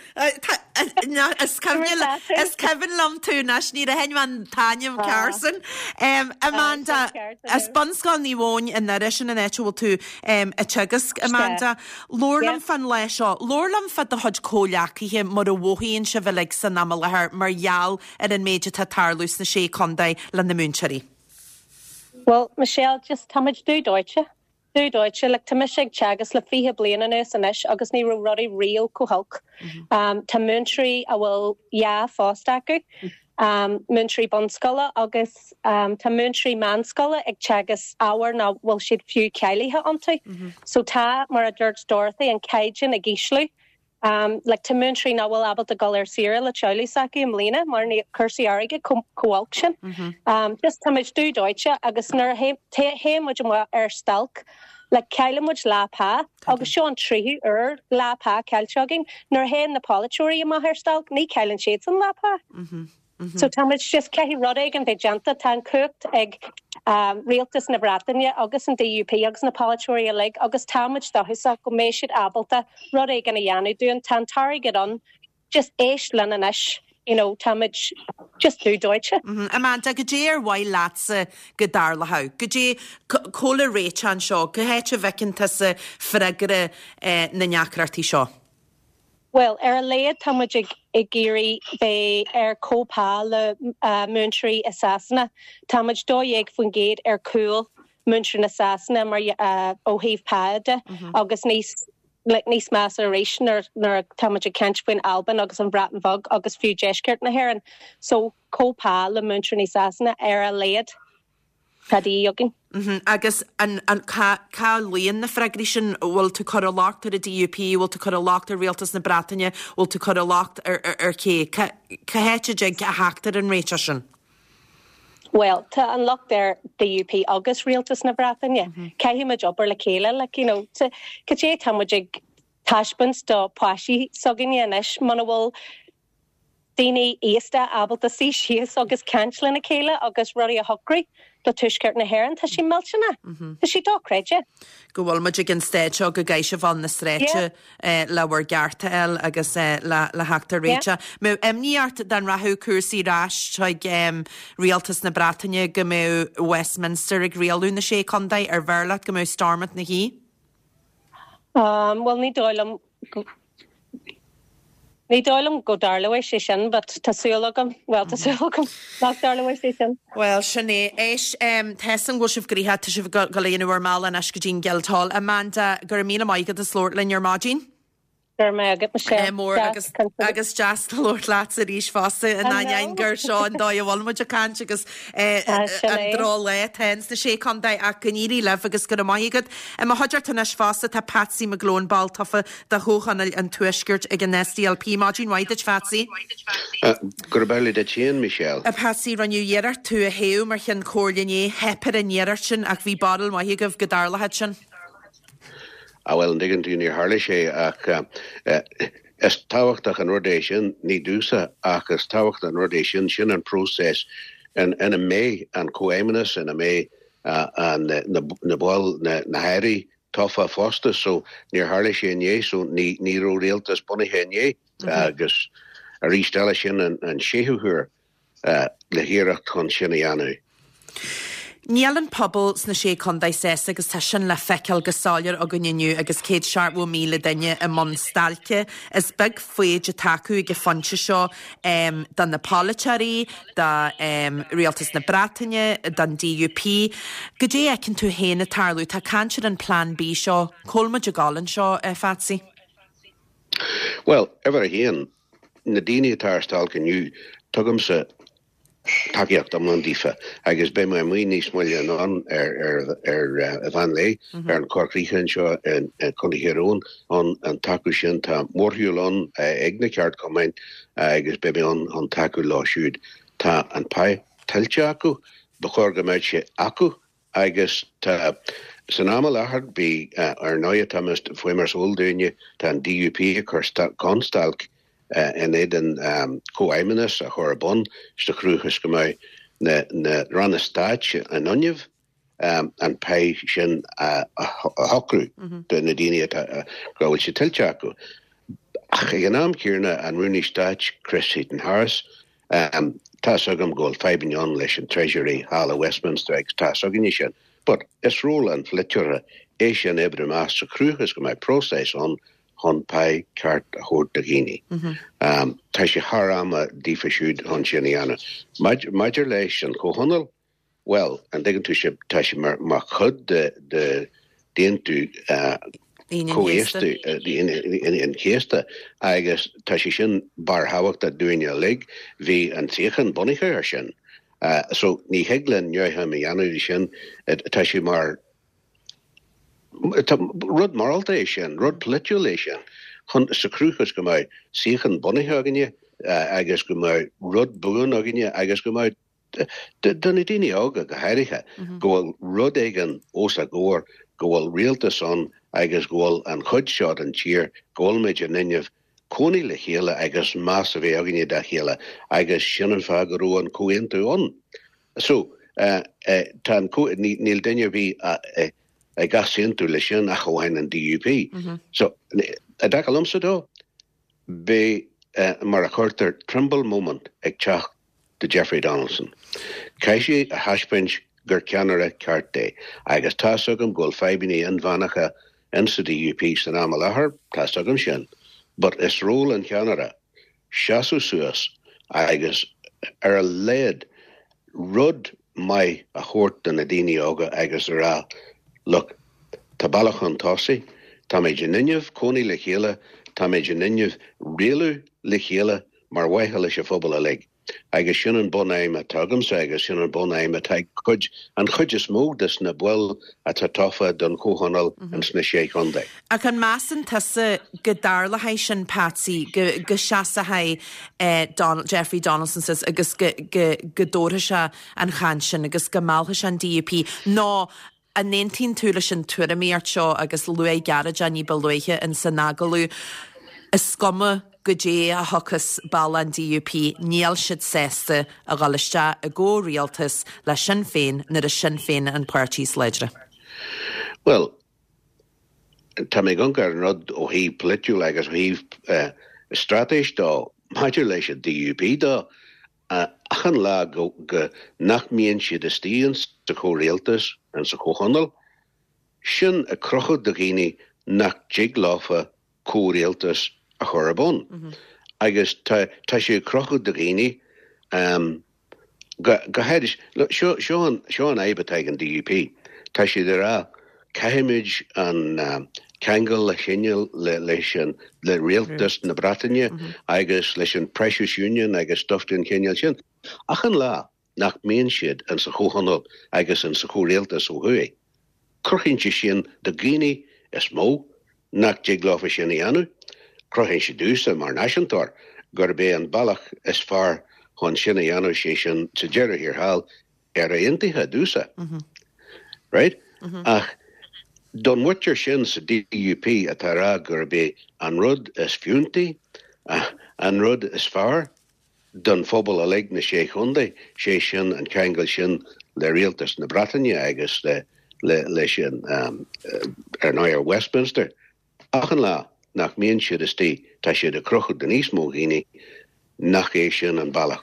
Is cuimhin liom tú anois, níor aithin mé an t-ainm Carson. Amanda, as Bunscoil Naomh Eoin i nDoire, sin an áit a bhfuil tú ag teagasc, Amanda. Labhair liom fán lá seo. Labhair liom fá do chuid comhghleacaithe mar a mhothaíonn sibh uilig san am i láthair mar gheall ar an méid atá ag tarlú sna Sé Chontae le na múinteoirí. Bhuel, Michelle, just táimid dubh dóite. Dubh dóite. Like, tá mise ag teagasc le 20 bliain anuas anois agus ní raibh rudaí riamh chomh holc. Tá múinteoirí a bhfuil dhá phost acu. múinteoirí bunscoile agus tá múinteoirí meánscoile ag teagasc ábhair nach bhfuil siad fiú cáilithe iontu. So tá, mar a dúirt Dorothy, an caighdeán ag ísliú. Like tá múinteoirí nach bhfuil ábalta dul ar saoire le teaghlaigh s'acu i mbliana mar níl cúrsaí airgid chomh holc sin. Just táimid dubh dóite agus nuair a théann muid amach ar stailc, Like, cailleann muid lá pá, agus seo an tríú uair lá pá caillte againn. Nuair a théann na polaiteoirí amach ar stailc, ní chailleann siadsan lá pá. So tá muid just, caithfidh rud éigin bheith déanta. Tá an chumhacht ag rialtas na Breataine agus an DUP agus na polaiteoirí uilig agus tá muid dóchasach go mbeidh siad ábalta rud éigin a dhéanamh dúinn. Tá an t-airgead ann. Just éist linn anois, you know, táimid just dubh dóite. Amanda, goidé ar mhaith leatsa go dtarlódh? Goidé, cá bhfuil an réiteach anseo? Cá háit a bhfeiceann tusa freagra na ndeacrachtaí seo? Bhuel, ar a laghad tá muid ag ag iarraidh bheith ar comhphá le múinteoirí i Sasana. Tá muid 12% ar cúl. muintir na Sasana mar ó thaobh pá de agus níos like níos measa arís nuair nuair atá muid ag caint faoin Albain agus an Bhreatain Bheag agus fiú deisceart na hÉireann. So comh pá le muintir na Sasana ar a laghad tá de dhíth againn. Agus an an cá cá luíonn na freagraí sin? Bhfuil tú cur an locht ar an DUP? Bhfuil tú cur an locht ar Rialtas na Breataine? Bhfuil tú cur an locht ar ar ar cé? Cá cá háit a dtig a theacht ar an réiteach sin? Bhuel, tá an locht ar DUP agus Rialtas na Breataine. Caithfidh muid obair le chéile, like, you know, cad é tá muid ag taispeáint do pháistí s'againne anois muna bhfuil daoine aosta ábalta suí síos agus caint lena chéile agus rudaí a shocrú do Tuaisceart na hÉireann. Tá sé millteanach. Tá sé dochreidte. go bhfuil muid ag an staid seo go gcaithfidh sibh a dhul na sráide le bhur gcearta a fháil agus le theacht ar réiteach. Mbeadh imní ort dá rachadh cúrsaí ar ais chuig Rialtas na Breataine go mbeadh Westminster ag rialú na Sé Chontae? Ar bhfearr leat go mbeadh Stormont 'na shuí? Bhuel, ní dóigh liom Ní dóigh liom go dtarlóidh sé sin but tá súil agam, bhuel tá súil agam nach dtarlóidh sé sin. Bhuel, sin é. Éist, tá 'fhios a'm go bhfuil sibh gnoitheach, tá sibh ag dul a dhéanamh bhur mbealach anois go dtí an Guildhall. Amanda, go raibh míle maith agat as labhairt linn ar maidin. Go raibh maith agat, Michelle. Mór agus agus deas labhairt leatsa arís fosta in ainneoin gur seo an dóigh a bhfuil muid ag caint agus an drochlá atá ins na Sé Chontae ach go n-éirí libh agus go raibh maith agat. I mo chuideachta anois fosta tá Patsy McGlone, ball tofa de Chomhthionól an Tuaiscirt ag an SDLP. Maidin mhaith duit, Phatsy. Gurb amhlaidh duit féin, Michelle. A Phatsy, rinneadh iarracht tú a thoghadh mar Cheann Comhairle inné. Theip ar an iarracht sin ach bhí barúil mhaith agaibh go dtarlódh sin. Ah bhuel, an dtuigeann tú, níor tharla sé ach is tábhachtach an rud é sin, ní domhsa ach is tábhachtach an rud é sin, sin an próiseas ina mbeidh an Comhfheidhmeannas, ina mbeidh na baill, na hairí, tofa fosta so níor tharla sé inné so ní ní raibh rialtas bunaithe inné agus arís eile sin an séú huair le hiarracht chun sin a dhéanamh. Níl an pobal sna Sé Contae sásta agus tá sin le feiceáil go soiléir againn inniu agus 170,000 duine i mbun stailce. Is beag foighid atá acu ag an phointe seo do na polaiteoirí, do Rialtas na Breataine, don DUP. Goidé a fheiceann tú féin ag tarlú? Tá caint ar an Plan B seo. Cá bhfuil muid ag dul anseo, a Phatsy? Bhuel, uimhir a haon, na daoine atá ar stailc inniu, tugaimse tacaíocht iomlán daofa agus beidh mé amuigh níos moille anonn ar ar mheán lae ar an Chorr Chríche anseo i Contae Thír Eoghain chun an tacú sin. Tá mórshiúl ann ag na ceardchumainn agus beidh mé ann chun tacú leo siúd. Tá an pá tuillte acu, ba chóir go mbeadh sé acu agus tá, san am i láthair, bhí, ar ndóigh, tá, faoi mar is eol dúinne, tá an DUP ag cur chun stailc in éadan comhfheidhmeannas a chur ar bun sa chruth is go mbeadh na ranna stáit in innimh an pá sin a shocrú do na daoine atá, go bhfuil sé tuillte acu. Ach ag an am céanna, an Rúnaí Stáit, Chris Heaton-Harris, tá 'fhios agam go bhfuil fadhbanna ann leis an Treasury thall i Westminster agus tá 'fhios againne sin, but is ról an pholaiteora é sin oibriú amach sa chruth is go mbeidh próiseas ann chun pá ceart a thabhairt do dhaoine. Tá sé thar am daofa siúd chun sin a dhéanamh. Maidir leis an Chomhthionól, bhuel, an dtuigeann tú, sé, tá sé mar mar chuid de de d'aontú Comhaontú Aoine an Chéasta agus tá sé sin barrthábhachtach dúinne uilig. Bhí an suíochán bunaithe ar sin. So ní thig linn neamhshuim a dhéanamh de sin. Tá sé mar Rud morálta é sin, rud polaitiúil é sin, chun sa chruth is go mbeadh suíochán bunaithe againne agus go mbeadh rud buan againne agus go mbeadh, do na daoine óga go háirithe, go bhfuil rud éigin os a gcomhair, go bhfuil rialtas ann agus go bhfuil an chuid seo den tír, go bhfuil muid in innimh cónaí le chéile agus meas a bheith againne dá chéile agus sin an fáth go raibh an comhaontú ann. So, tá an, níl duine ar bith ag easaontú leis sin ach amháin an DUP. So, i dtaca liomsa dó, beidh, mar a chuirtear, Trimble moment ag teacht do Jeffrey Donaldson. Caithfidh sé a thaispeáint gur ceannaire ceart é. Agus tá's agam go bhfuil fadhbanna inmheánacha insa DUP san am i láthair, tá's agam sin, but is ról an cheannaire seasamh suas agus ar a laghad rud. maith a thabhairt do na daoine óga agus a rá, look, tá bealach chun tosaigh, táimid in innimh cónaí le chéile, táimid in innimh rialú le chéile mar mhaithe leis an phobal uilig. Agus sin an bun-aidhm atá agamsa agus sin an bun-aidhm atá ag cuid, an chuid is mó des na baill atá tofa don Chomhthionól ins na Sé Chontae. Ach an measann tusa go dtarlóidh sin, Patsy, go go seasfaidh Donald, Jeffrey Donaldson suas agus go go go dtabharfaidh sé an chaint sin agus go meallfaidh sé an DUP nó an aontaíonn tú leis an tuairimíocht seo agus luaigh Gearóid é ní ba luaithe in san agallamh, is cuma goidé a thiocfas bealach an DUP, níl siad sásta a dhul isteach i gcomhrialtas le Sinn Féin nuair is Sinn Féin an páirtí is láidre? Bhuel, Tá mé ag amharc ar an rud ó thaobh polaitiúil agus ó thaobh straitéis dó maidir leis an DUP dó. Achan lá go nach mbíonn siad istigh ins sa chomhrialtas, ins sa chomhthionól, sin ag cruthú do dhaoine nach dtig leofa comhrialtas a chur ar bun. Agus tá sé ag cruthú do dhaoine Go háirithe, seo seo an fhadhb atá ag an DUP. Tá siad ag rá, caithfimid an ceangal a choinneáil leis an, le rialtas na Breataine agus leis an Precious Union agus stuff den chineál sin. Achan lá nach mbíonn siad insa chomhthionól agus insa chomhrialtas ó thuaidh, Cruthaíonn sé sin do dhaoine is mó nach dtig leofa sin a dhéanamh. Cruthaíonn sé domhsa mar náisiúntóir gurb é an bealach is fearr chun sin a dhéanamh, sé sin sa deireadh thiar thall, Éire Aontaithe domhsa. Right? Ach don mhuintir sin sa DUP atá ag rá gurb é an rud is fiúntaí, an rud is fearr, don phobal uilig na Sé Chontae, sé sin an ceangal sin le rialtas na Breataine agus le leis an, ar ndóigh, ar Westminster. Achan lá nach mbíonn siad istigh tá siad ag cruthú do níos mó dhaoine nach é sin an bealach.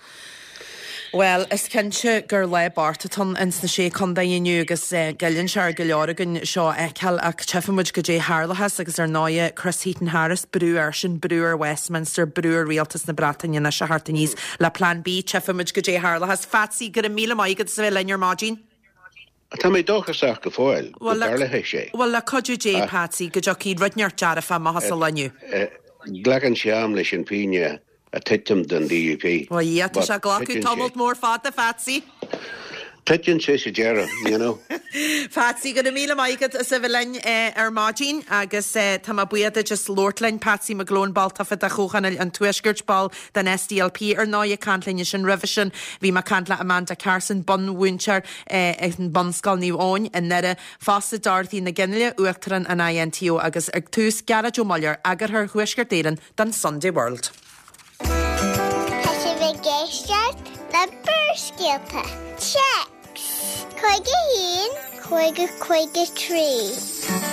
Bhuel, is cinnte gur lá bocht atá ann ins na Sé Contae inniu agus goilleann sé ar go leor againn seo a fheiceáil ach tchífidh muid goidé a tharlóchas agus ar ndóighe Chris Heaton-Harris, brú airsean, brú ar Westminster, brú ar Rialtas na Breataine anois a theacht aníos le Plean B. Tchífidh muid goidé a tharlóchas. Phatsy, go raibh míle maith agat as a bheith linn ar maidin. Tá mé dóchasach go fóill go dtarlóidh sé. Bhuel, le cuidiú Dé, Patsy, go dtiocfaidh rud inteacht dearfach amach as an lá inniu. Glacann sé am leis an bpian a titim don DUP. Bhuel, yeah, tá sé ag glacadh tamalt mór fada, Phatsy. Titeann sé sa deireadh, you know. Phatsy, go raibh míle maith agat as a bheith linn ar maidin agus tá mé buíoch duit as labhairt linn. Patsy McGlone, ball tofa de Chomhthionól an Tuaiscirt, ball den SDLP ar ndóigh, ag caint linn ansin roimhe sin. Bhí mé ag caint le Amanda Carson, bunmhúinteoir i mBunscoil Naomh Eoin i nDoire. Fosta Dorothy Nic Fhionnghaile, Uachtarán an INTO agus ag tús, Gearóid Ó Muilleoir, Eagarthóir Thuaisceart Éireann don Sunday World. Tá sibh ag éisteacht le Barrscéalta. Téacs 51 50 53.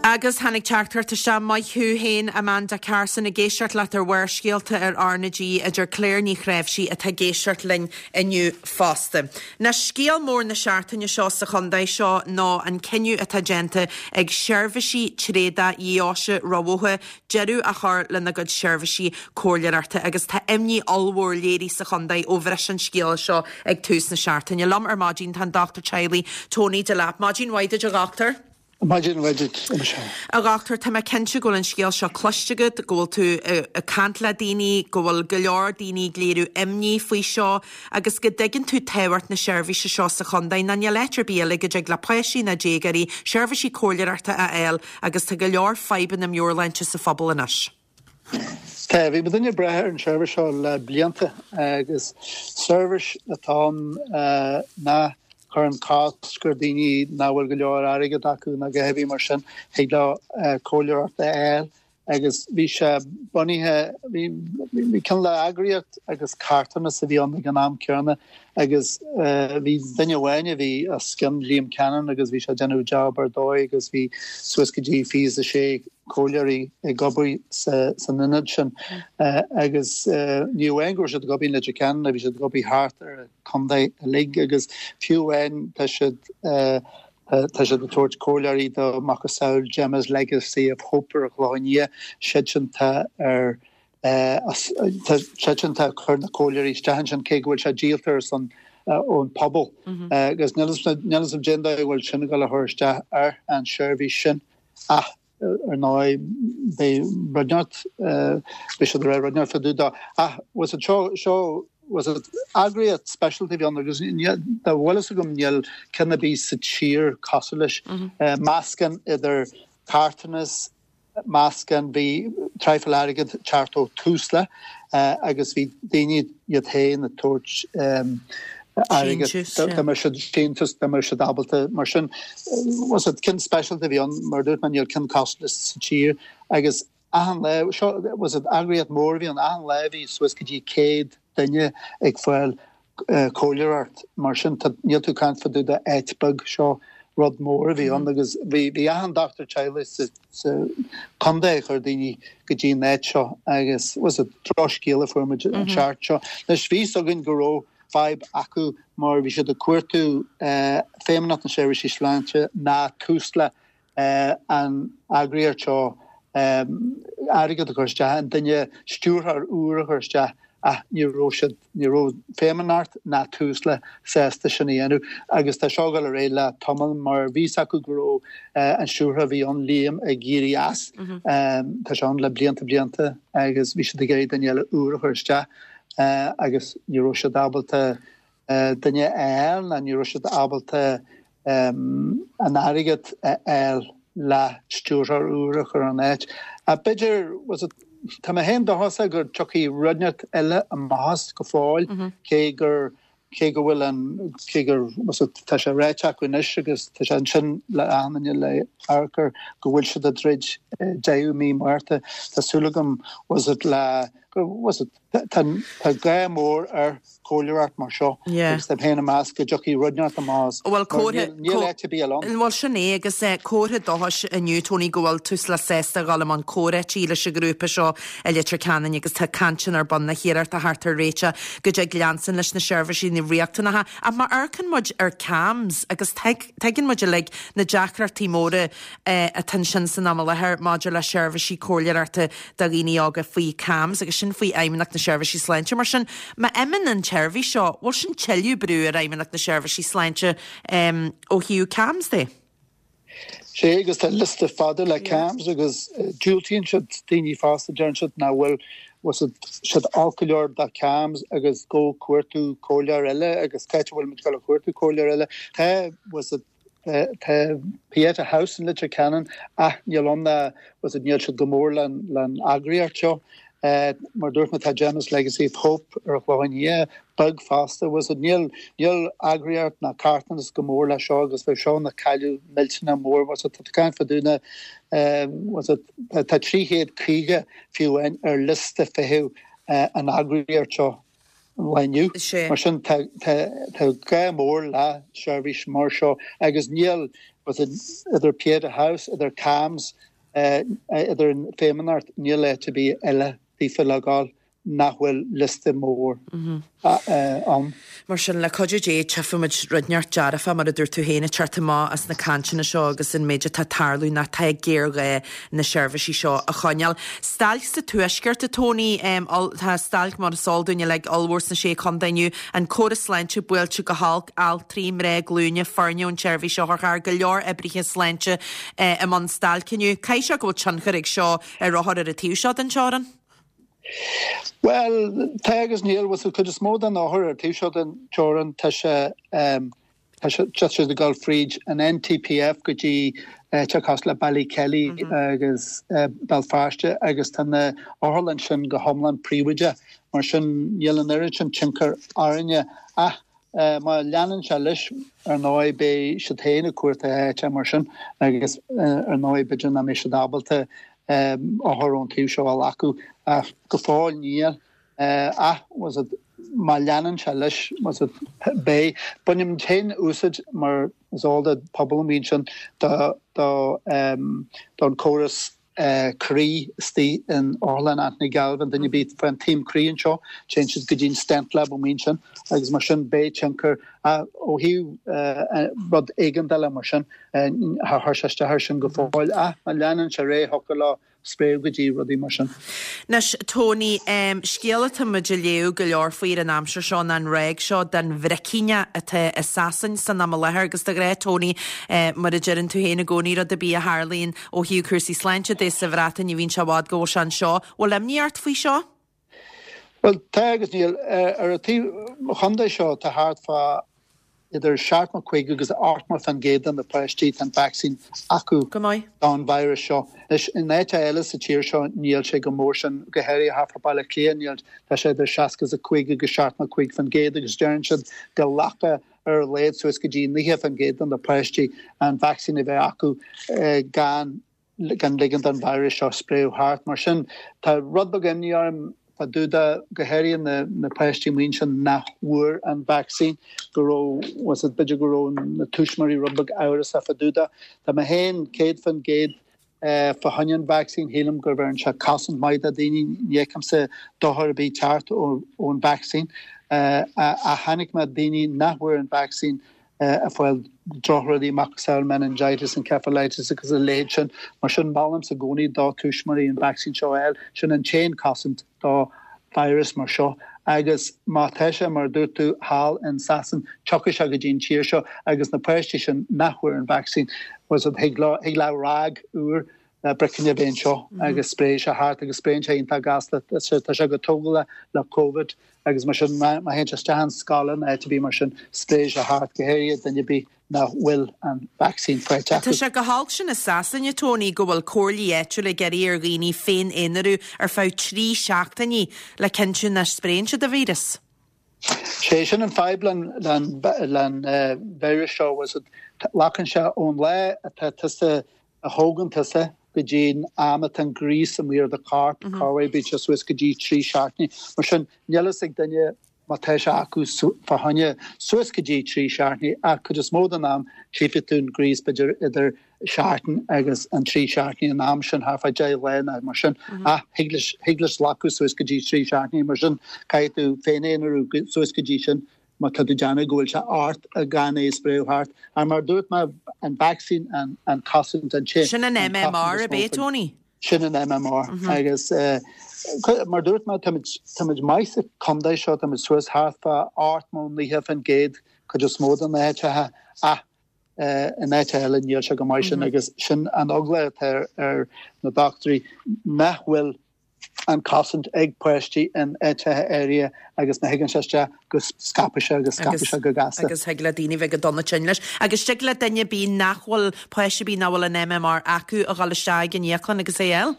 Agus tháinig teachtaireacht isteach, Maith thú féin Amanda Carson, ag éisteacht leat ar Bharrscéalta ar R na G, a deir Claire Ní Chnáimhsí atá ag éisteacht linn inniu fosta. Now scéal mór na seachtaine seo sa chontae seo ná an cinneadh atá déanta ag Seirbhísí Tréada Dheoise Ráth Bhotha deireadh a chur lena gcuid seirbhísí comhairleoireachta agus tá imní ollmhór léirithe sa chontae ó bhris an scéala seo ag tús na seachtaine. Liom ar maidin tá an Dochtúir Teaghlaigh Tony Delap. Maidin mhaith duit a dhochtúir. Maidin mhaith duit, a Michelle. A dhochtúir, tá mé cinnte go bhfuil an scéal seo cloiste agat, go bhfuil tú ag caint le daoine, go bhfuil go leor daoine ag léiriú imní faoi seo agus go dtuigeann tú tábhacht na seirbhíse seo sa chontae. Ná níl áit ar bith eile go dtig le páistí ná déagóirí seirbhísí comhairleoireachta a fháil agus tá go leor fadhbanna meabhairshláinte sa phobal anois. Tá, bhí muidinne ag brath ar an seirbhís seo le blianta agus seirbhís atá ann nach gcuireann cosc ar daoine nach bhfuil go leor airgead acu nó a dhath ar bith mar sin, thig leo comhairleoireacht a fháil agus bhí sé bunaithe, bhí cineál de eagraíocht agus carthanas a bhí ann ag an am céanna agus bhí duine amháin a bhí os cionn, Liam Cannon, agus bhí sé ag déanamh job ar dóigh agus bhí suas go dtí 26 comhairleoirí ag obair san ionad sin agus ní amháin go raibh siad ag obair in Leitir Ceanainn, bhí siad ag obair thart ar an chontae uilig agus fiú amháin tá siad tá siad ag tabhairt comhairleoirí do macasamhail Gemma's Legacy of Hope ar an Chlochán Liath, siad sin tá ar. Tá siadsan atá ag cur na comhairleoirí isteach ansin cé go bhfuil sé díolta ar son ón pobal. Agus níl a fhios agam cén dóigh a bhfuil sin ag dul a chur isteach ar an seirbhís sin ach ar ndóigh beidh rud inteacht, beidh siad ag rá rud inteacht fá dtaobh dó. Ach bhfuil fhios agat seo, seo bhfuil fhios agat eagraíocht speisialta a bhí ann agus dá bhfuil fhios agam níl ceann ar bith sa tír cosúil leis. Meascán idir carthanas, meascán, bhí traidhfil airgead ag teacht ó Tusla agus bhí daoine iad féin ag tabhairt airgead dá mbeadh siad síntiús, dá mbeadh siad ábalta. Mar sin, bhfuil fhios agat, ceann speisialta a bhí ann, mar a dúirt mé, níl ceann cosúil leis sa tír agus achan lá, seo, bhfuil fhios agat, eagraíocht mór a bhí ann, achan lá bhí suas go dtí 100 duine ag fáil comhairleoireacht mar sin tá, níl tú ag caint fá dtaobh d'áit beag, seo rud mór a bhí ann agus bhí, bhí achan dochtúir teaghlaigh sa, sa chontae ag cur daoine go dtí an áit seo agus bhfuil fhios agat, drochscéal a fuair muid an tseachtain seo. Anois bhí fhios againn go raibh fadhb acu mar bhí siad ag cuartú Feidhmeannacht na Seirbhísí Sláinte ná Tusla an eagraíocht seo airgead a chur isteach, an duine stiúrthóir úr a chur isteach ach ní raibh siad, ní raibh Feidhmeannacht ná Tusla sásta sin a dhéanamh agus tá seo ag dul ar aghaidh le tamall mar bhí fhios acu go raibh an stiúrthóir a bhí ann, Liam, ag éirí as. Tá sé ann le blianta blianta agus bhí siad ag iarraidh duine eile úr a chur isteach agus ní raibh siad ábalta duine a fháil ná ní raibh siad ábalta an airgead a fháil le stiúrthóir úr a chur in áit. Ach b'fhéidir, bhfuil fhios agat, tá mé féin dóchasach go dtiocfaidh rud inteacht eile amach as go fóill, cé gur, cé go bhfuil an, cé gur, bhfuil fhios agat, tá sé ráite acu anois agus tá sé ansin le achan duine le amharc air go bhfuil siad ag troid deireadh mí Márta. Tá súil agam, bhfuil fhios agat, le, go, bhfuil fhios agat, Tá gá mór ar chomhairleoireacht mar seo agus táim féin ag meas go dtiocfaidh rud inteacht amach as mar níl áit ar bith eile ann. Bhuel sin é agus comhartha dóchais inniu Tony go bhfuil Tusla sásta a dhul i mbun comhráití leis an ghrúpa seo i Leitir Ceanainn agus tá cainteanna ar bun le hiarracht a theacht ar réiteach go dtig leanstan leis na seirbhísí riachtanacha. Ach má amharcann muid ar CAMHS agus tuigeann muid uilig na deacrachtaí móra atá ansin san am i láthair maidir le seirbhísí comhairleoireachta do dhaoine óga faoi CAMHS agus sin faoi Fheidhmeannacht na Seirbhísí Sláinte. Mar sin, má imíonn an tseirbhís seo, bhfuil sin tuilleadh brú ar Fheidhmeannacht na Seirbhísí Sláinte ó thaobh CAMHS de? Sea, agus tá liosta fada le CAMHS agus diúltaíonn siad daoine fosta, deireann siad nach bhfuil siad olc go leor do CAMHS agus gabh cuartú comhairleoir eile agus cá háit a bhfuil muid ag dul a chuartú comhairleoir eile. Tá, bhfuil fhios agat, Tá Pieta House in Leitir Ceanainn ach níl ann ná, bhfuil fhios agat, níl siad go mór len eagraíocht seo. Mar dúirt mé tá Gemma's Legacy of Hope ar an Chlochán Liath, beag fosta, bhfuil fhios agat, níl, níl eagraíocht ná carthanas go mór le seo agus bheadh seo ina cailleadh millteanach mór, bhfuil fhios agat, tá tú ag caint fá dtaobh na, bhfuil fhios agat, tá 350 fiú amháin ar liosta feithimh an eagraíocht seo. an lae inniu. Mar sin tá gá mór le seirbhís mar seo agus níl idir Pieta House, idir CAMHS, idir an Feidhmeannacht, níl áit ar bith eile daofa le gabháil nach bhfuil liosta mór ann. Mar sin, le cuidiú Dé, tchífimid rud inteacht dearfach, mar a dúirt tú féin, ag teacht amach as na cainteanna seo agus an méid atá ag tarlú, nó tá géarghá na seirbhísí seo a choinneáil. Stailc sa Tuaisceart, a Tony, tá stailc mar is eol dúinn uilig ollmhór sna Sé Chontae inniu, an córas sláinte buailte go holc, altraí, mná glúine, foirne ón tseirbhís otharcharr, go leor oibrithe sláinte i mbun stailce inniu. Caithfidh sé go bhfuil tionchar ag seo ar othair ar an taobh seo den teorainn? Bhuel, tá agus níl. Bhuel, sa chuid is mó den othar ar an taobh seo den teorainn, tá sé, Tá siad ag dul fríd an NTPF go dtí áiteacha cosúil le Ballykelly agus Béal Feirste agus tá na otharlann sin go hiomlán príobháideach. Mar sin níl an oiread sin tionchar orainne ach má leanann sé leis ar ndóigh beidh siad féin ag cuartú áite mar sin agus ar ndóigh b'fhéidir nach mbeidh siad ábalta othair ón taobh seo a ghlacadh ach go fóill níl. Ach, bhfuil fhios agat, má leanann sé leis, bhfuil fhios agat, beidh. Bainimid féin úsáid, mar is eol don phobal amuigh ansin, do, do, don córas croí istigh in Otharlann Anthony Galvin, duine ar bith faoin taom croí anseo, téann siad go dtí an stent lab amuigh ansin agus mar sin beidh tionchar ó thaobh rud éigeandála mar sin, char chuir sé isteach air sin go fóill ach má leanann sé ar aghaidh thiocfadh leo. spréadh go dtí rudaí mar sin. Anois, Tony, scéal atá muid ag léamh go leor faoi ar an aimsir seo ná an ráig seo den bhricíneach atá i Sasain san am i láthair agus de ghnáth, Tony, mar a deireann tú féin i gcónaí, rud ar bith a tharlaíonn ó thaobh cúrsaí sláinte de sa Bhreatain ní bhíonn sé i bhfad go bhfuil sé anseo. Bhfuil imní ort faoi seo? Bhuel, tá agus níl. Ar an taobh chontae seo tá thart fá idir 75 agus 80% de na páistí tá an vacsaín acu don virus seo. Anois, in áiteacha eile sa tír seo níl sé chomh mór sin, go háirithe thart fá Baile Átha Cliath níl, tá sé idir 65 agus 75% agus deireann siad go nglacfadh ar a laghad suas go dtí 90% de na páistí an vacsaín a bheith acu gan gan ligean don virus seo spréadh thart. Mar sin, tá rud beag imní orm fá dtaobh de, go háirithe na na páistí amuigh ansin nach bhfuair an vacsaín, go raibh, bhfuil a fhios agat, b'fhéidir go raibh na tuismitheoirí rud beag amhrasach fá dtaobh de. Tá mé féin 100% fá choinne an vacsaín, shílim go bheireann sé cosaint maith do daoine, ní fheicimse dochar ar bith teacht ón vacsaín. Ach chonaic mé daoine nach bhfuair an vacsaín ag fáil drochrudaí macasamhail meningitis, encephalitis agus a leithéid sin. Mar sin, molaimse i gcónaí do tuismitheoirí an vacsaín seo a fháil. Sin an t-aon cosaint do virus mar seo. Agus má tá sé, mar a dúirt tú, thall in Sasain, tiocfaidh sé go dtí an tír seo agus na páistí sin nach bhfuair an vacsaín, bhfuil a fhios agat, thig leo, thig le ráig úr le bricín a bheith anseo agus spréifidh sé thart agus spréann sé iontach gasta. Tá sé go tógálach le Covid agus mar sin má théann sé isteach in scoil nó áit ar bith mar sin spréifidh sé thart, go háirithe duine ar bith nach bhfuil an vacsaín faighte acu. Tá sé go holc sin i Sasain, a Tony, go bhfuil comhairlí áitiúla ag iarraidh ar dhaoine féin-aonarú ar feadh 3 seachtainí le cinntiú nach spréann siad an víreas. Sé sin an fadhb le an víreas seo, bhfuil a fhios agat, glacann sé ón lá atá tusa a thógann tusa go dtí an am atá an gríos amuigh ar do chorp, corruair bíonn sé suas go dtí 3 seachtainí. Mar sin, níl fhios ag duine má tá sé acu fá choinne suas go dtí 3 seachtainí ach cuid is mó den am tchífidh tú an gríos b'fhéidir idir seachtain agus an 3 seachtainí, an am sin thart fá 10 lá nó mar sin. Ach thig leis, thig leis glacadh suas go dtí 3 seachtainí mar sin caithfidh tú féin-aonarú suas go dtí sin. Má tá tú ag déanamh go bhfuil sé ort gan é a spréadh thart. Ach mar a dúirt mé, an vacsaín an cosaint, an t-. Sin an MMR ab é, Tony? Sin an MMR. Agus mar a dúirt mé, táimid, táimid maith sa chontae seo, táimid suas thart fá 80, 90% cuid is mó de na háiteacha ach in áiteacha eile níl sé go maith sin agus sin an eagla atá ar na dochtúirí nach bhfuil an cosaint ag páistí in áiteacha áirithe agus má thigeann sé isteach go scaipfidh sé agus scaipfidh sé go gasta. Agus thig le daoine bheith go dona tinn leis. Agus tig le duine ar bith nach bhfuil, páiste ar bith nach bhfuil an MMR acu a dhul isteach ag an íoclann agus é a fháil?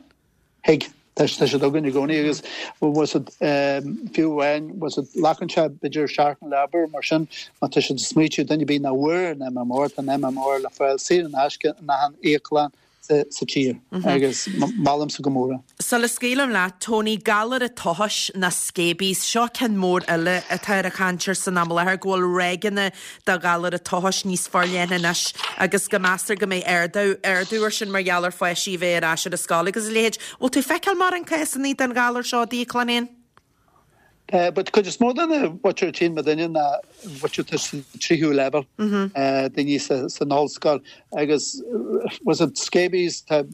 Thig. Tá siad againn i gcónaí agus bhfuil a fhios agat, fiú amháin, bhfuil a fhios agat, glacann sé b'fhéidir seachtain le obair mar sin má tá siad ag smaoitiú duine ar bith nach bhfuair an MMR, tá an MMR le fáil saor in aisce in achan íoclann sa tír agus molaimse go mór é. Sula scaoilim leat, Tony, galar an tochais nó scabies, seo ceann mór eile atá ar an chaint air san am i láthair, go bhfuil ráigeanna de ghalar an tochais níos forleithne anois agus go meastar go mbeidh ardú, ardú air sin mar gheall ar pháistí a bheith ar ais ar an scoil agus a leithéid. Bhfuil tú ag feiceáil mórán cásanna den ghalar seo i d'íoclann féin? But cuid is mó de na butcher tchíonn muidinne ná butcher tá sa tríú leibhéal, daoine san ollscoil agus was it scabies tá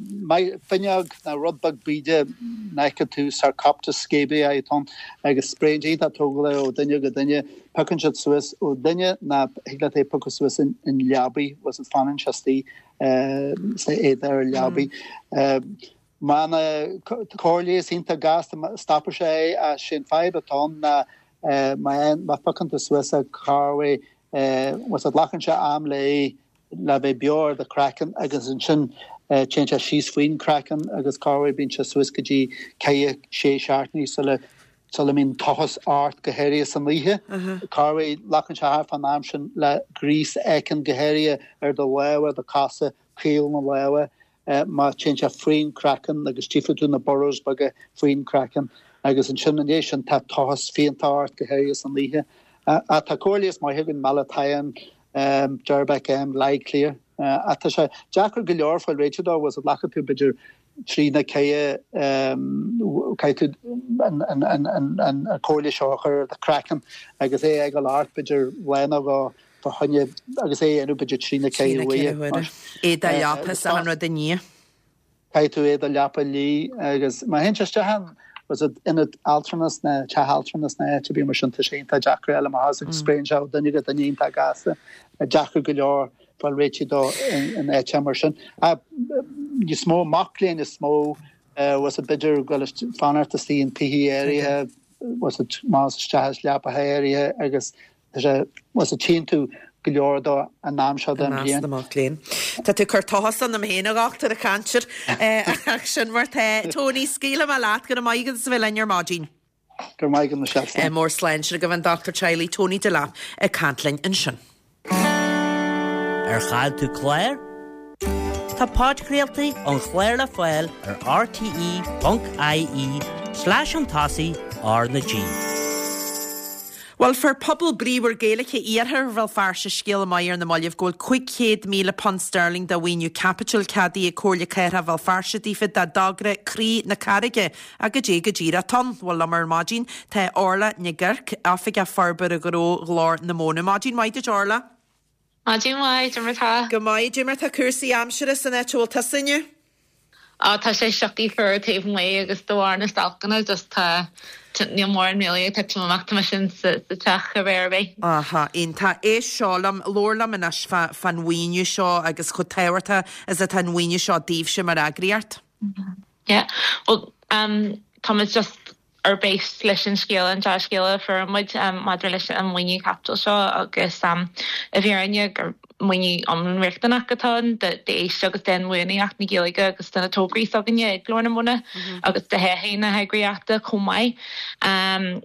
finneog nó rud beag bíde nach bhfeiceann tú Sarcoptes scabiei atá ann agus spréann sé iontach tógálach ó duine go duine, piocann siad suas ó duine nó thig leat é a phiocadh suas in leabaidh was it fanann sé istigh sa éadach ar leabaidh. Mana cóir leighis iontach gasta, stopfaidh sé é ach sé an fadhb atá ann ná má má phiocann tú suas é corruair was it glacann sé am le le bheith beo ar do chraiceann agus ansin téann sé síos faoin craiceann agus corruair bíonn sé suas go dtí ceithre sé seachtainí sula sula mbíonn tochas ort go háirithe san oíche. Corruair glacann sé thart fán am sin le gríos a fheiceann go háirithe ar do lámha, do chosa, caol na lámha. má téann sé faoin craiceann agus tchífidh tú na burrows beaga faoin craiceann agus ansin i ndiaidh sin tá tochas fiánta ort go háirithe san oíche. Ach tá cóir leighis maith againn, Malathion, Derbac M, Lyclear. Ach tá sé deacair go leor fáil réiteach dó, bhfuil a fhios agat glacfaidh tú b'fhéidir trí nó ceithre caithfidh tú an cóir leighis seo a chur ar do chraiceann agus é a fhágáil ort b'fhéidir lá nó dhó fá choinne agus é a dhéanamh b'fhéidir trí nó ceithre uaire. É do leapa is achan rud i ndiaidh. Caithfidh tú é do leapa luí agus má théann sé isteach in bhfuil a fhios agat ionad altranais ná teach altranais ná áit ar bith mar sin tá sé iontach deacair a fháil amach as agus spréann sé ó duine go duine iontach gasta, deacair go leor fáil réitithe dó in áit mar sin. Níos mó mac léinn is mó bhfuil a fhios agat b'fhéidir go bhfuil fanacht istigh in tithe áirithe bhfuil a fhios agat amach is isteach as leapacha áirithe agus Tá sé, bhfuil a fhios agat tchíonn tú go leor dó an am seo den bhliain. I measc na mac léinn. Tá tú ag cur tochas ionam féin, a dhochtúir, ag caint air. Ach sin mar tá. Tony, scaoilfidh mé leat. Go raibh maith agat as a bheith linn ar maidin. Go raibh maith agat, Michelle. Slán. Mór slán. Sin agaibh an dochtúir teaghlaigh Tony Delap ag caint linn ansin. Ar chaill tú clár? Tá podchraoltaí an chláir le fáil ar rte.ie slash chun tosaigh R na G. Bhuel, fuair pobal bríomhar Gaeilge Iarthar Bhéal Feirste scéala maith ar na mallaibh go bhfuil £500,000 sterling de mhaoiniú caipitil ceadaithe ag Comhairle Cathrach Bhéal Feirste daofa dá dtogra Croí na Carraige ach goidé go díreach atá ann. Bhuel, liom ar maidin tá Orla Nic Oirc, Oifigeach Forbartha Gnó Ghlór na Móna. Maidin mhaith duit Orla. Maidin mhaith, cad é mar tá? Go maith, cad é mar tá cúrsaí aimsire san áit a bhfuil tusa inniu? Á, tá sé siocthaí fuar taobh amuigh agus de bharr na stailceanna just tá, níl mórán really ag titim amach, tá mise in sa teach cibé ar bith. Aha, iontach. Éist seo liom, labhair liom anois fá, fán mhaoiniú seo agus chomh tábhachtach is atá an mhaoiniú seo daoibhse mar eagraíocht. Yeah, bhuel, táimid just ar bís leis an scéala, an dea-scéala a fuair muid maidir leis an maoiniú caipitil seo agus i bhfírinne gur maoiniú iomlán riachtanach atá ann d'fhís agus d'inbhuanaitheacht na Gaeilge agus do na tograí s'againne ag Glór na Móna agus do thodhchaí na heagraíochta chomh maith.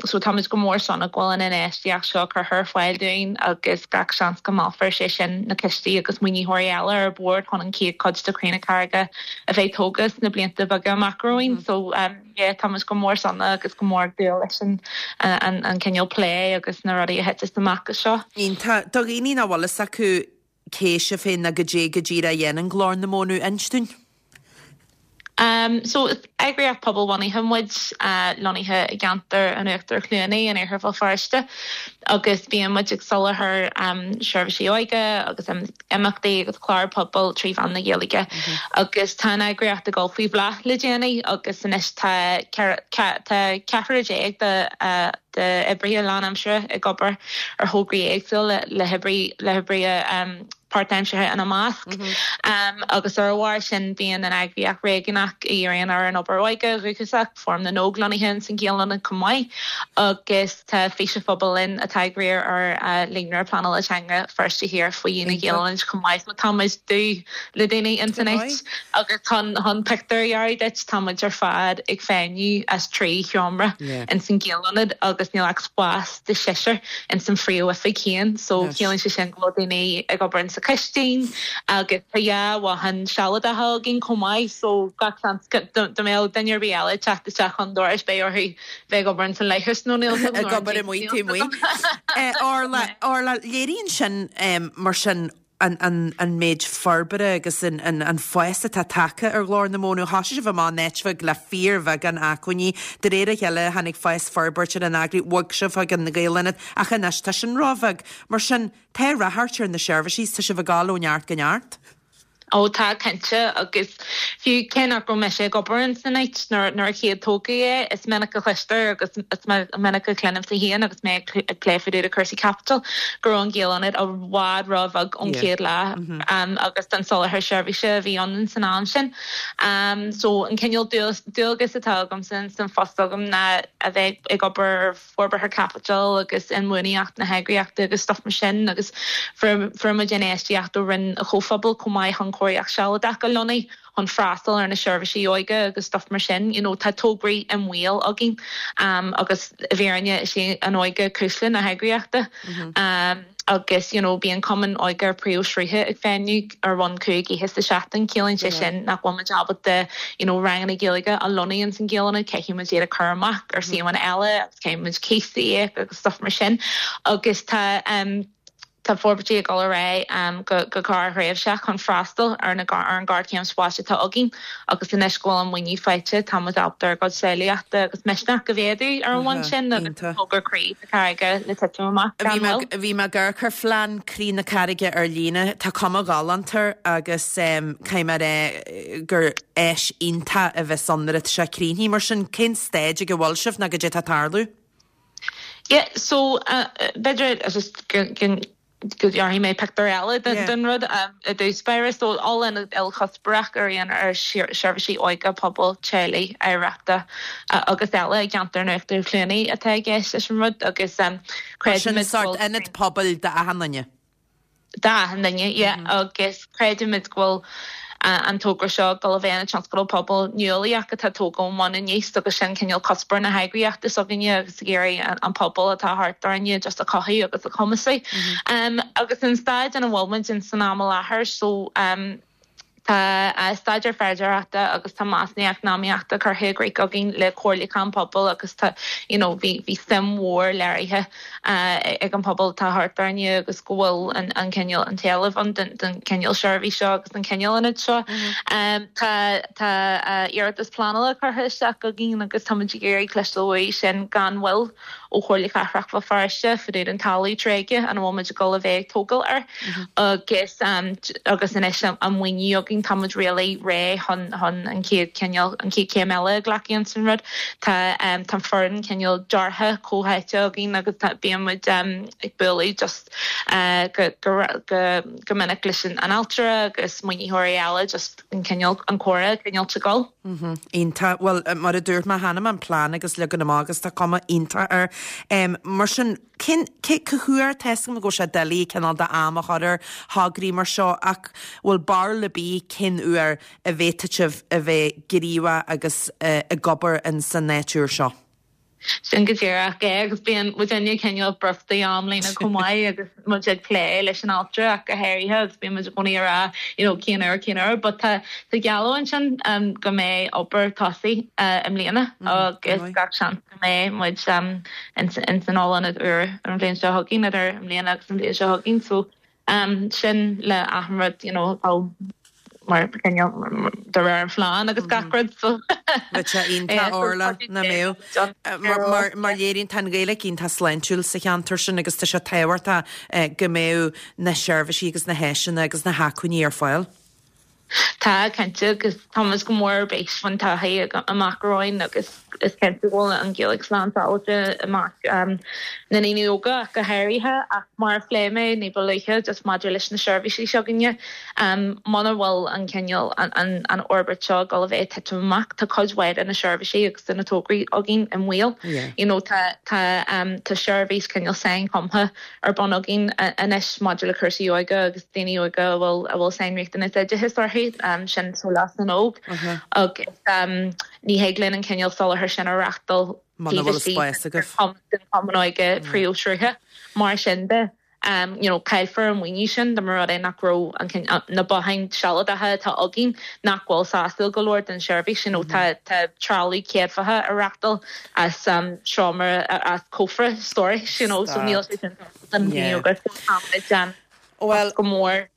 So táimid go mór sona go bhfuil an infheistíocht seo curtha ar fáil dúinn agus gach seans go meallfar sé sin na cistí agus maoinitheoirí eile ar bord chun an chéad chuid de Chroí na Carraige a bheith tógtha sna blianta beaga amach romhainn. So yeah, táimid go mór sona agus go mór ag dúil leis an an cineál plé agus na rudaí a thiteas amach as seo. Iontach. Do dhaoine nach bhfuil fhios acu cé sibh féin ná goidé go díreach a dhéanann Glór na Móna, inis dúinn. So is eagraíocht pobalbhunaithe muid, lonnaithe i gceantar an Uachtar Chluanaí in Iarthar Bhéal Feirste agus bíonn muid ag soláthar seirbhísí óige agus imeachtaí agus cláir pobail trí mheán na Gaeilge agus tá an eagraíocht ag dul faoi bhláth le déanaí agus anois tá tá ceathrar déag de d'oibrithe lánaimseartha ag obair ar thograí éagsúla le hoibrithe páirtaimseartha ina measc agus ar a bharr sin bíonn an eagraíocht réigiúnach a dhíríonn ar an obair óige dhúchasach, Fóram na nÓg lonnaithe ins an Ghaelaonad chomh maith agus tá Fís an Phobail linn atá ag riar ar Líonra Pleanála Teanga Feirste Thiar faoi dhíon an Ghaelaonaid chomh maith. So tá muid dubh le daoine ins an áit agus chun chun pictiúr a dhearadh duit tá muid ar fad ag feidhmiú as 3 sheomra ins an Ghaelaonad agus níl ach spás do sheisear ins an phríomhoifig féin so ciallaíonn sé sin go bhfuil daoine ag obair insa chistin agus tá dhá bhothán sealadacha againn chomh maith so gach seans dá mbeadh duine ar bith eile ag teacht isteach chun dorais beidh orthu bheith ag obair ins an leithreas nó níl ag obair amuigh taobh amuigh. Orla, Orla, léiríonn sin mar sin an an méid forbartha agus an an fás atá tagtha ar Ghlór na Móna. Thosaigh sibh amach in áit bheag le fíorbheagán acmhainní. De réir a chéile tháinig fás forbairt ar an eagraíocht, bhog sibh chuig an Ghaelaonad ach anois tá sin róbheag. Mar sin, tá ráchairt ar na seirbhísí, tá sibh ag dul ó neart go neart. Ó tá, cinnte, agus fiú cé nach raibh mise ag obair ins an áit nuair a chéad tógadh é, is minic a chloistear agus is minic a chluinimse féin agus mé ag plé fá dtaobh de chúrsaí caipitil go raibh an Gaelaonad i bhfad ró-bheag ón chéad lá agus don soláthar seirbhíse a bhí ann ins an am sin. So an cineál dualgas atá agamsa ins an phost agam ná a bheith ag obair ar forbartha caipitil agus inbhuanaitheacht na heagraíochta agus stuff mar sin agus fuair muid infheistíocht ó Roinn an Chomhphobail chomh maith chun cóiríocht sealadach a lonnú chun freastal ar na seirbhísí óige agus stuff mar sin. You know tá tograí i mbaol againn agus i bhfírinne is é an óige cuisle na heagraíochta. Agus you know bíonn cumann óige príomhshrutha ag feidhmiú ar bhonn 5 oíche sa seachtain. Ciallaíonn sé sin nach bhfuil muid ábalta you know ranganna Gaeilge a lonnú ins an Ghaelaonad, caithfidh muid iad a chur amach ar suíomhanna eile agus caithfidh muid cíos a íoc agus stuff mar sin. Agus tá. Tá forbairtí ag dul ar aghaidh go gearrthréimhseach chun freastal ar an ngéarchéim spáis atá againn agus anois go bhfuil an maoiniú faighte, tá muid ábalta ár gcuid samhlaíochta agus misneach a mhéadú ar an bhonn sin agus togra Croí na Carraige le titim amach gan mhoill. Bhí mé ag amharc ar phlean Croí na Carraige ar líne. Tá cuma ghalánta air agus caithfidh mé a rá gur áis iontach a bheas ann nuair atá sé críochnaithe. Mar sin, cén staid ag a bhfuil sibh nó goidé atá ag tarlú? Yeah, so b'fhéidir just go ndearfaidh mé pictiúr eile den rud i dtús báire. So oll-ionad ilchuspóireach ar aon ar seirbhísí óige, pobail, teaghlaigh, oidhreachta agus eile i gceantar an Uachtar Chluanaí atá i gceist leis an rud agus creidimid go bhfuil. Sórt ionad pobail d'achan duine. D'achan duine, yeah, agus creidimid go bhfuil an togra seo ag dul a bheith ina tionscadal pobail nuálaíoch atá ag tógáil ón mbun aníos agus sin cineál cuspóir na heagraíochta s'againne agus ag iarraidh an pobal atá thart orainne just a chothú agus a chumasú. Agus an staid ina bhfuil muid in san am i láthair so, Tá staidéar féidearthachta agus tá measúnú eacnamaíochta curtha i gcrích againn le comhairliúchán pobail agus tá you know bhí bhí suim mhór léirithe ag an pobal atá thart orainne agus go bhfuil an an cineál an t-éileamh ann don don cineál seirbhís seo agus don cineál ionaid seo. Tá tá iarratas pleanála curtha isteach againn agus táimid ag iarraidh cloisteáil uaidh sin gan mhoill. ó Chomhairle Cathrach Bhéal Feirste fá dtaobh den talamh tréigthe ina bhfuil muid ag dul a bheith ag tógáil air agus agus anois an maoiniú againn tá muid really réidh chun chun an chéad cineál an chéad chéim eile a ghlacadh ins an rud. Tá tá an foireann cineál deartha comhtháite againn agus tá bíonn muid ag bualadh just go go go go minic leis an ailtire agus maoinitheoirí eile just an cineál an comhrá a choinneáilt ag dul. Iontach. Bhuel, mar a dúirt mé, chonaic mé an plean agus leagan amach agus tá cuma iontach air. Mar sin, cén, cé, cá huair, tá 'fhios agam go bhfuil sé doiligh cineál de am a chur ar thograí mar seo ach bhfuil barúil ar bith cén uair a bhféadfadh sibh a bheith gníomhach agus ag obair in san áit úr seo? Sin go díreach é agus bíonn muidinne cineál brostaithe amlíne chomh maith agus muid ag plé leis an ailtire ach go háirithe agus bíonn muid i gcónaí ag rá you know cén uair, cén uair but tá tá gealladh ansin um go mbeidh obair tosaithe i mbliana agus gach seans go mbeidh muid um ins ins an oll-ionad úr an bhliain seo chugainn idir i mbliana agus an bhliain seo chugainn so Um sin le achan rud you know dul mar cineál de réir an phlean agus gach rud so. Bheadh sé iontach Orla nach mbeadh. Mar mar léiríonn tá an Ghaeilge iontach sláintiúil sa cheantar sin agus tá sé tábhachtach go mbeadh na seirbhísí agus na háiseanna agus na hacmhainní ar fáil. Tá, cinnte, agus táimid go mór ar bís faoin todhchaí amach romhainn agus is cinnte go bhfuil an Ghaeilge slán sábháilte i measc na ndaoine óga ach go háirithe. Ach mar a phléigh mé ní ba luaithe, just maidir leis na seirbhísí s'againne, muna bhfuil an cineál, an fhorbairt seo ag dul a bheith ag titim amach, tá cuid mhaith de na seirbhísí agus de na tograí againn i mbaol. You know, tá, tá, tá seirbhís cineál sainchumtha ar bun againn anois maidir le cúrsaí óige agus daoine óga a bhfuil a bhfuil sainriachtanas oideachais orthu, sin Sólás na nÓg, agus ní thig linn an cineál soláthair sin a reáchtáil taobh istigh den Chumann Óige príomhshrutha. Mar sin de, you know, caillfear an maoiniú sin dá mba rud é nach raibh an na botháin sealadacha atá againn nach bhfuil sásúil go leor don seirbhís, you know, tá tá trealamh céadfaithe á reáchtáil as seomra as cófra stórais you know so níl sé sin don daoine óga so táimid Bhuel go mór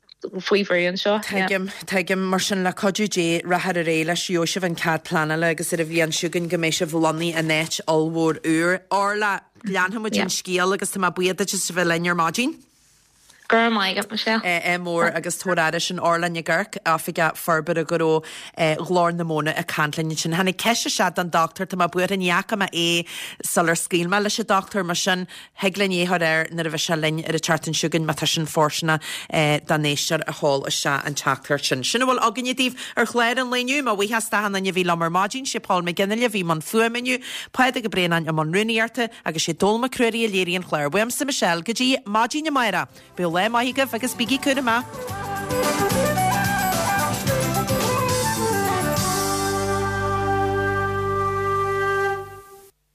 faoi bhrú anseo. Tuigim, tuigim. Mar sin, le cuidiú Dé, rachaidh ar aghaidh leis, gheobhaidh sibh an cead pleanála agus ar an bhliain seo chugainn go mbeidh sibh lonnaithe in áit ollmhór úr. Orla, leanfaidh muid an scéal agus tá mé buíoch duit as a bheith linn ar maidin. Go raibh maith agat, Michelle. Ádh mór agus tabhair aire sin Orla Nic Oirc, Oifigeach Forbartha Gnó Ghlór na Móna ag caint linn ansin. Tháinig ceist isteach don dochtúir, tá mé buartha, ní fhaca mé é sular scaoil mé leis an dochtúir, mar sin thig linn é a chur air nuair a bheidh sé linn ar an tseachtain seo chugainn má tá sin fóirsteanach don éisteoir a sheol isteach an teachtaireacht sin. Sin a bhfuil againne daoibh ar chlár an lae inniu. Mo bhuíochas d'achan duine a bhí liom ar maidin, sé Paul McGinley a bhí i mbun fuaime inniu, Pádraig Ó Braonáin i mbun rúnaíochta, Agus sé Dónall Mac Ruairí a léirigh an clár. Uaimse Michelle go dtí maidin amárach. Bíodh lá maith agaibh agus bígí cúramach.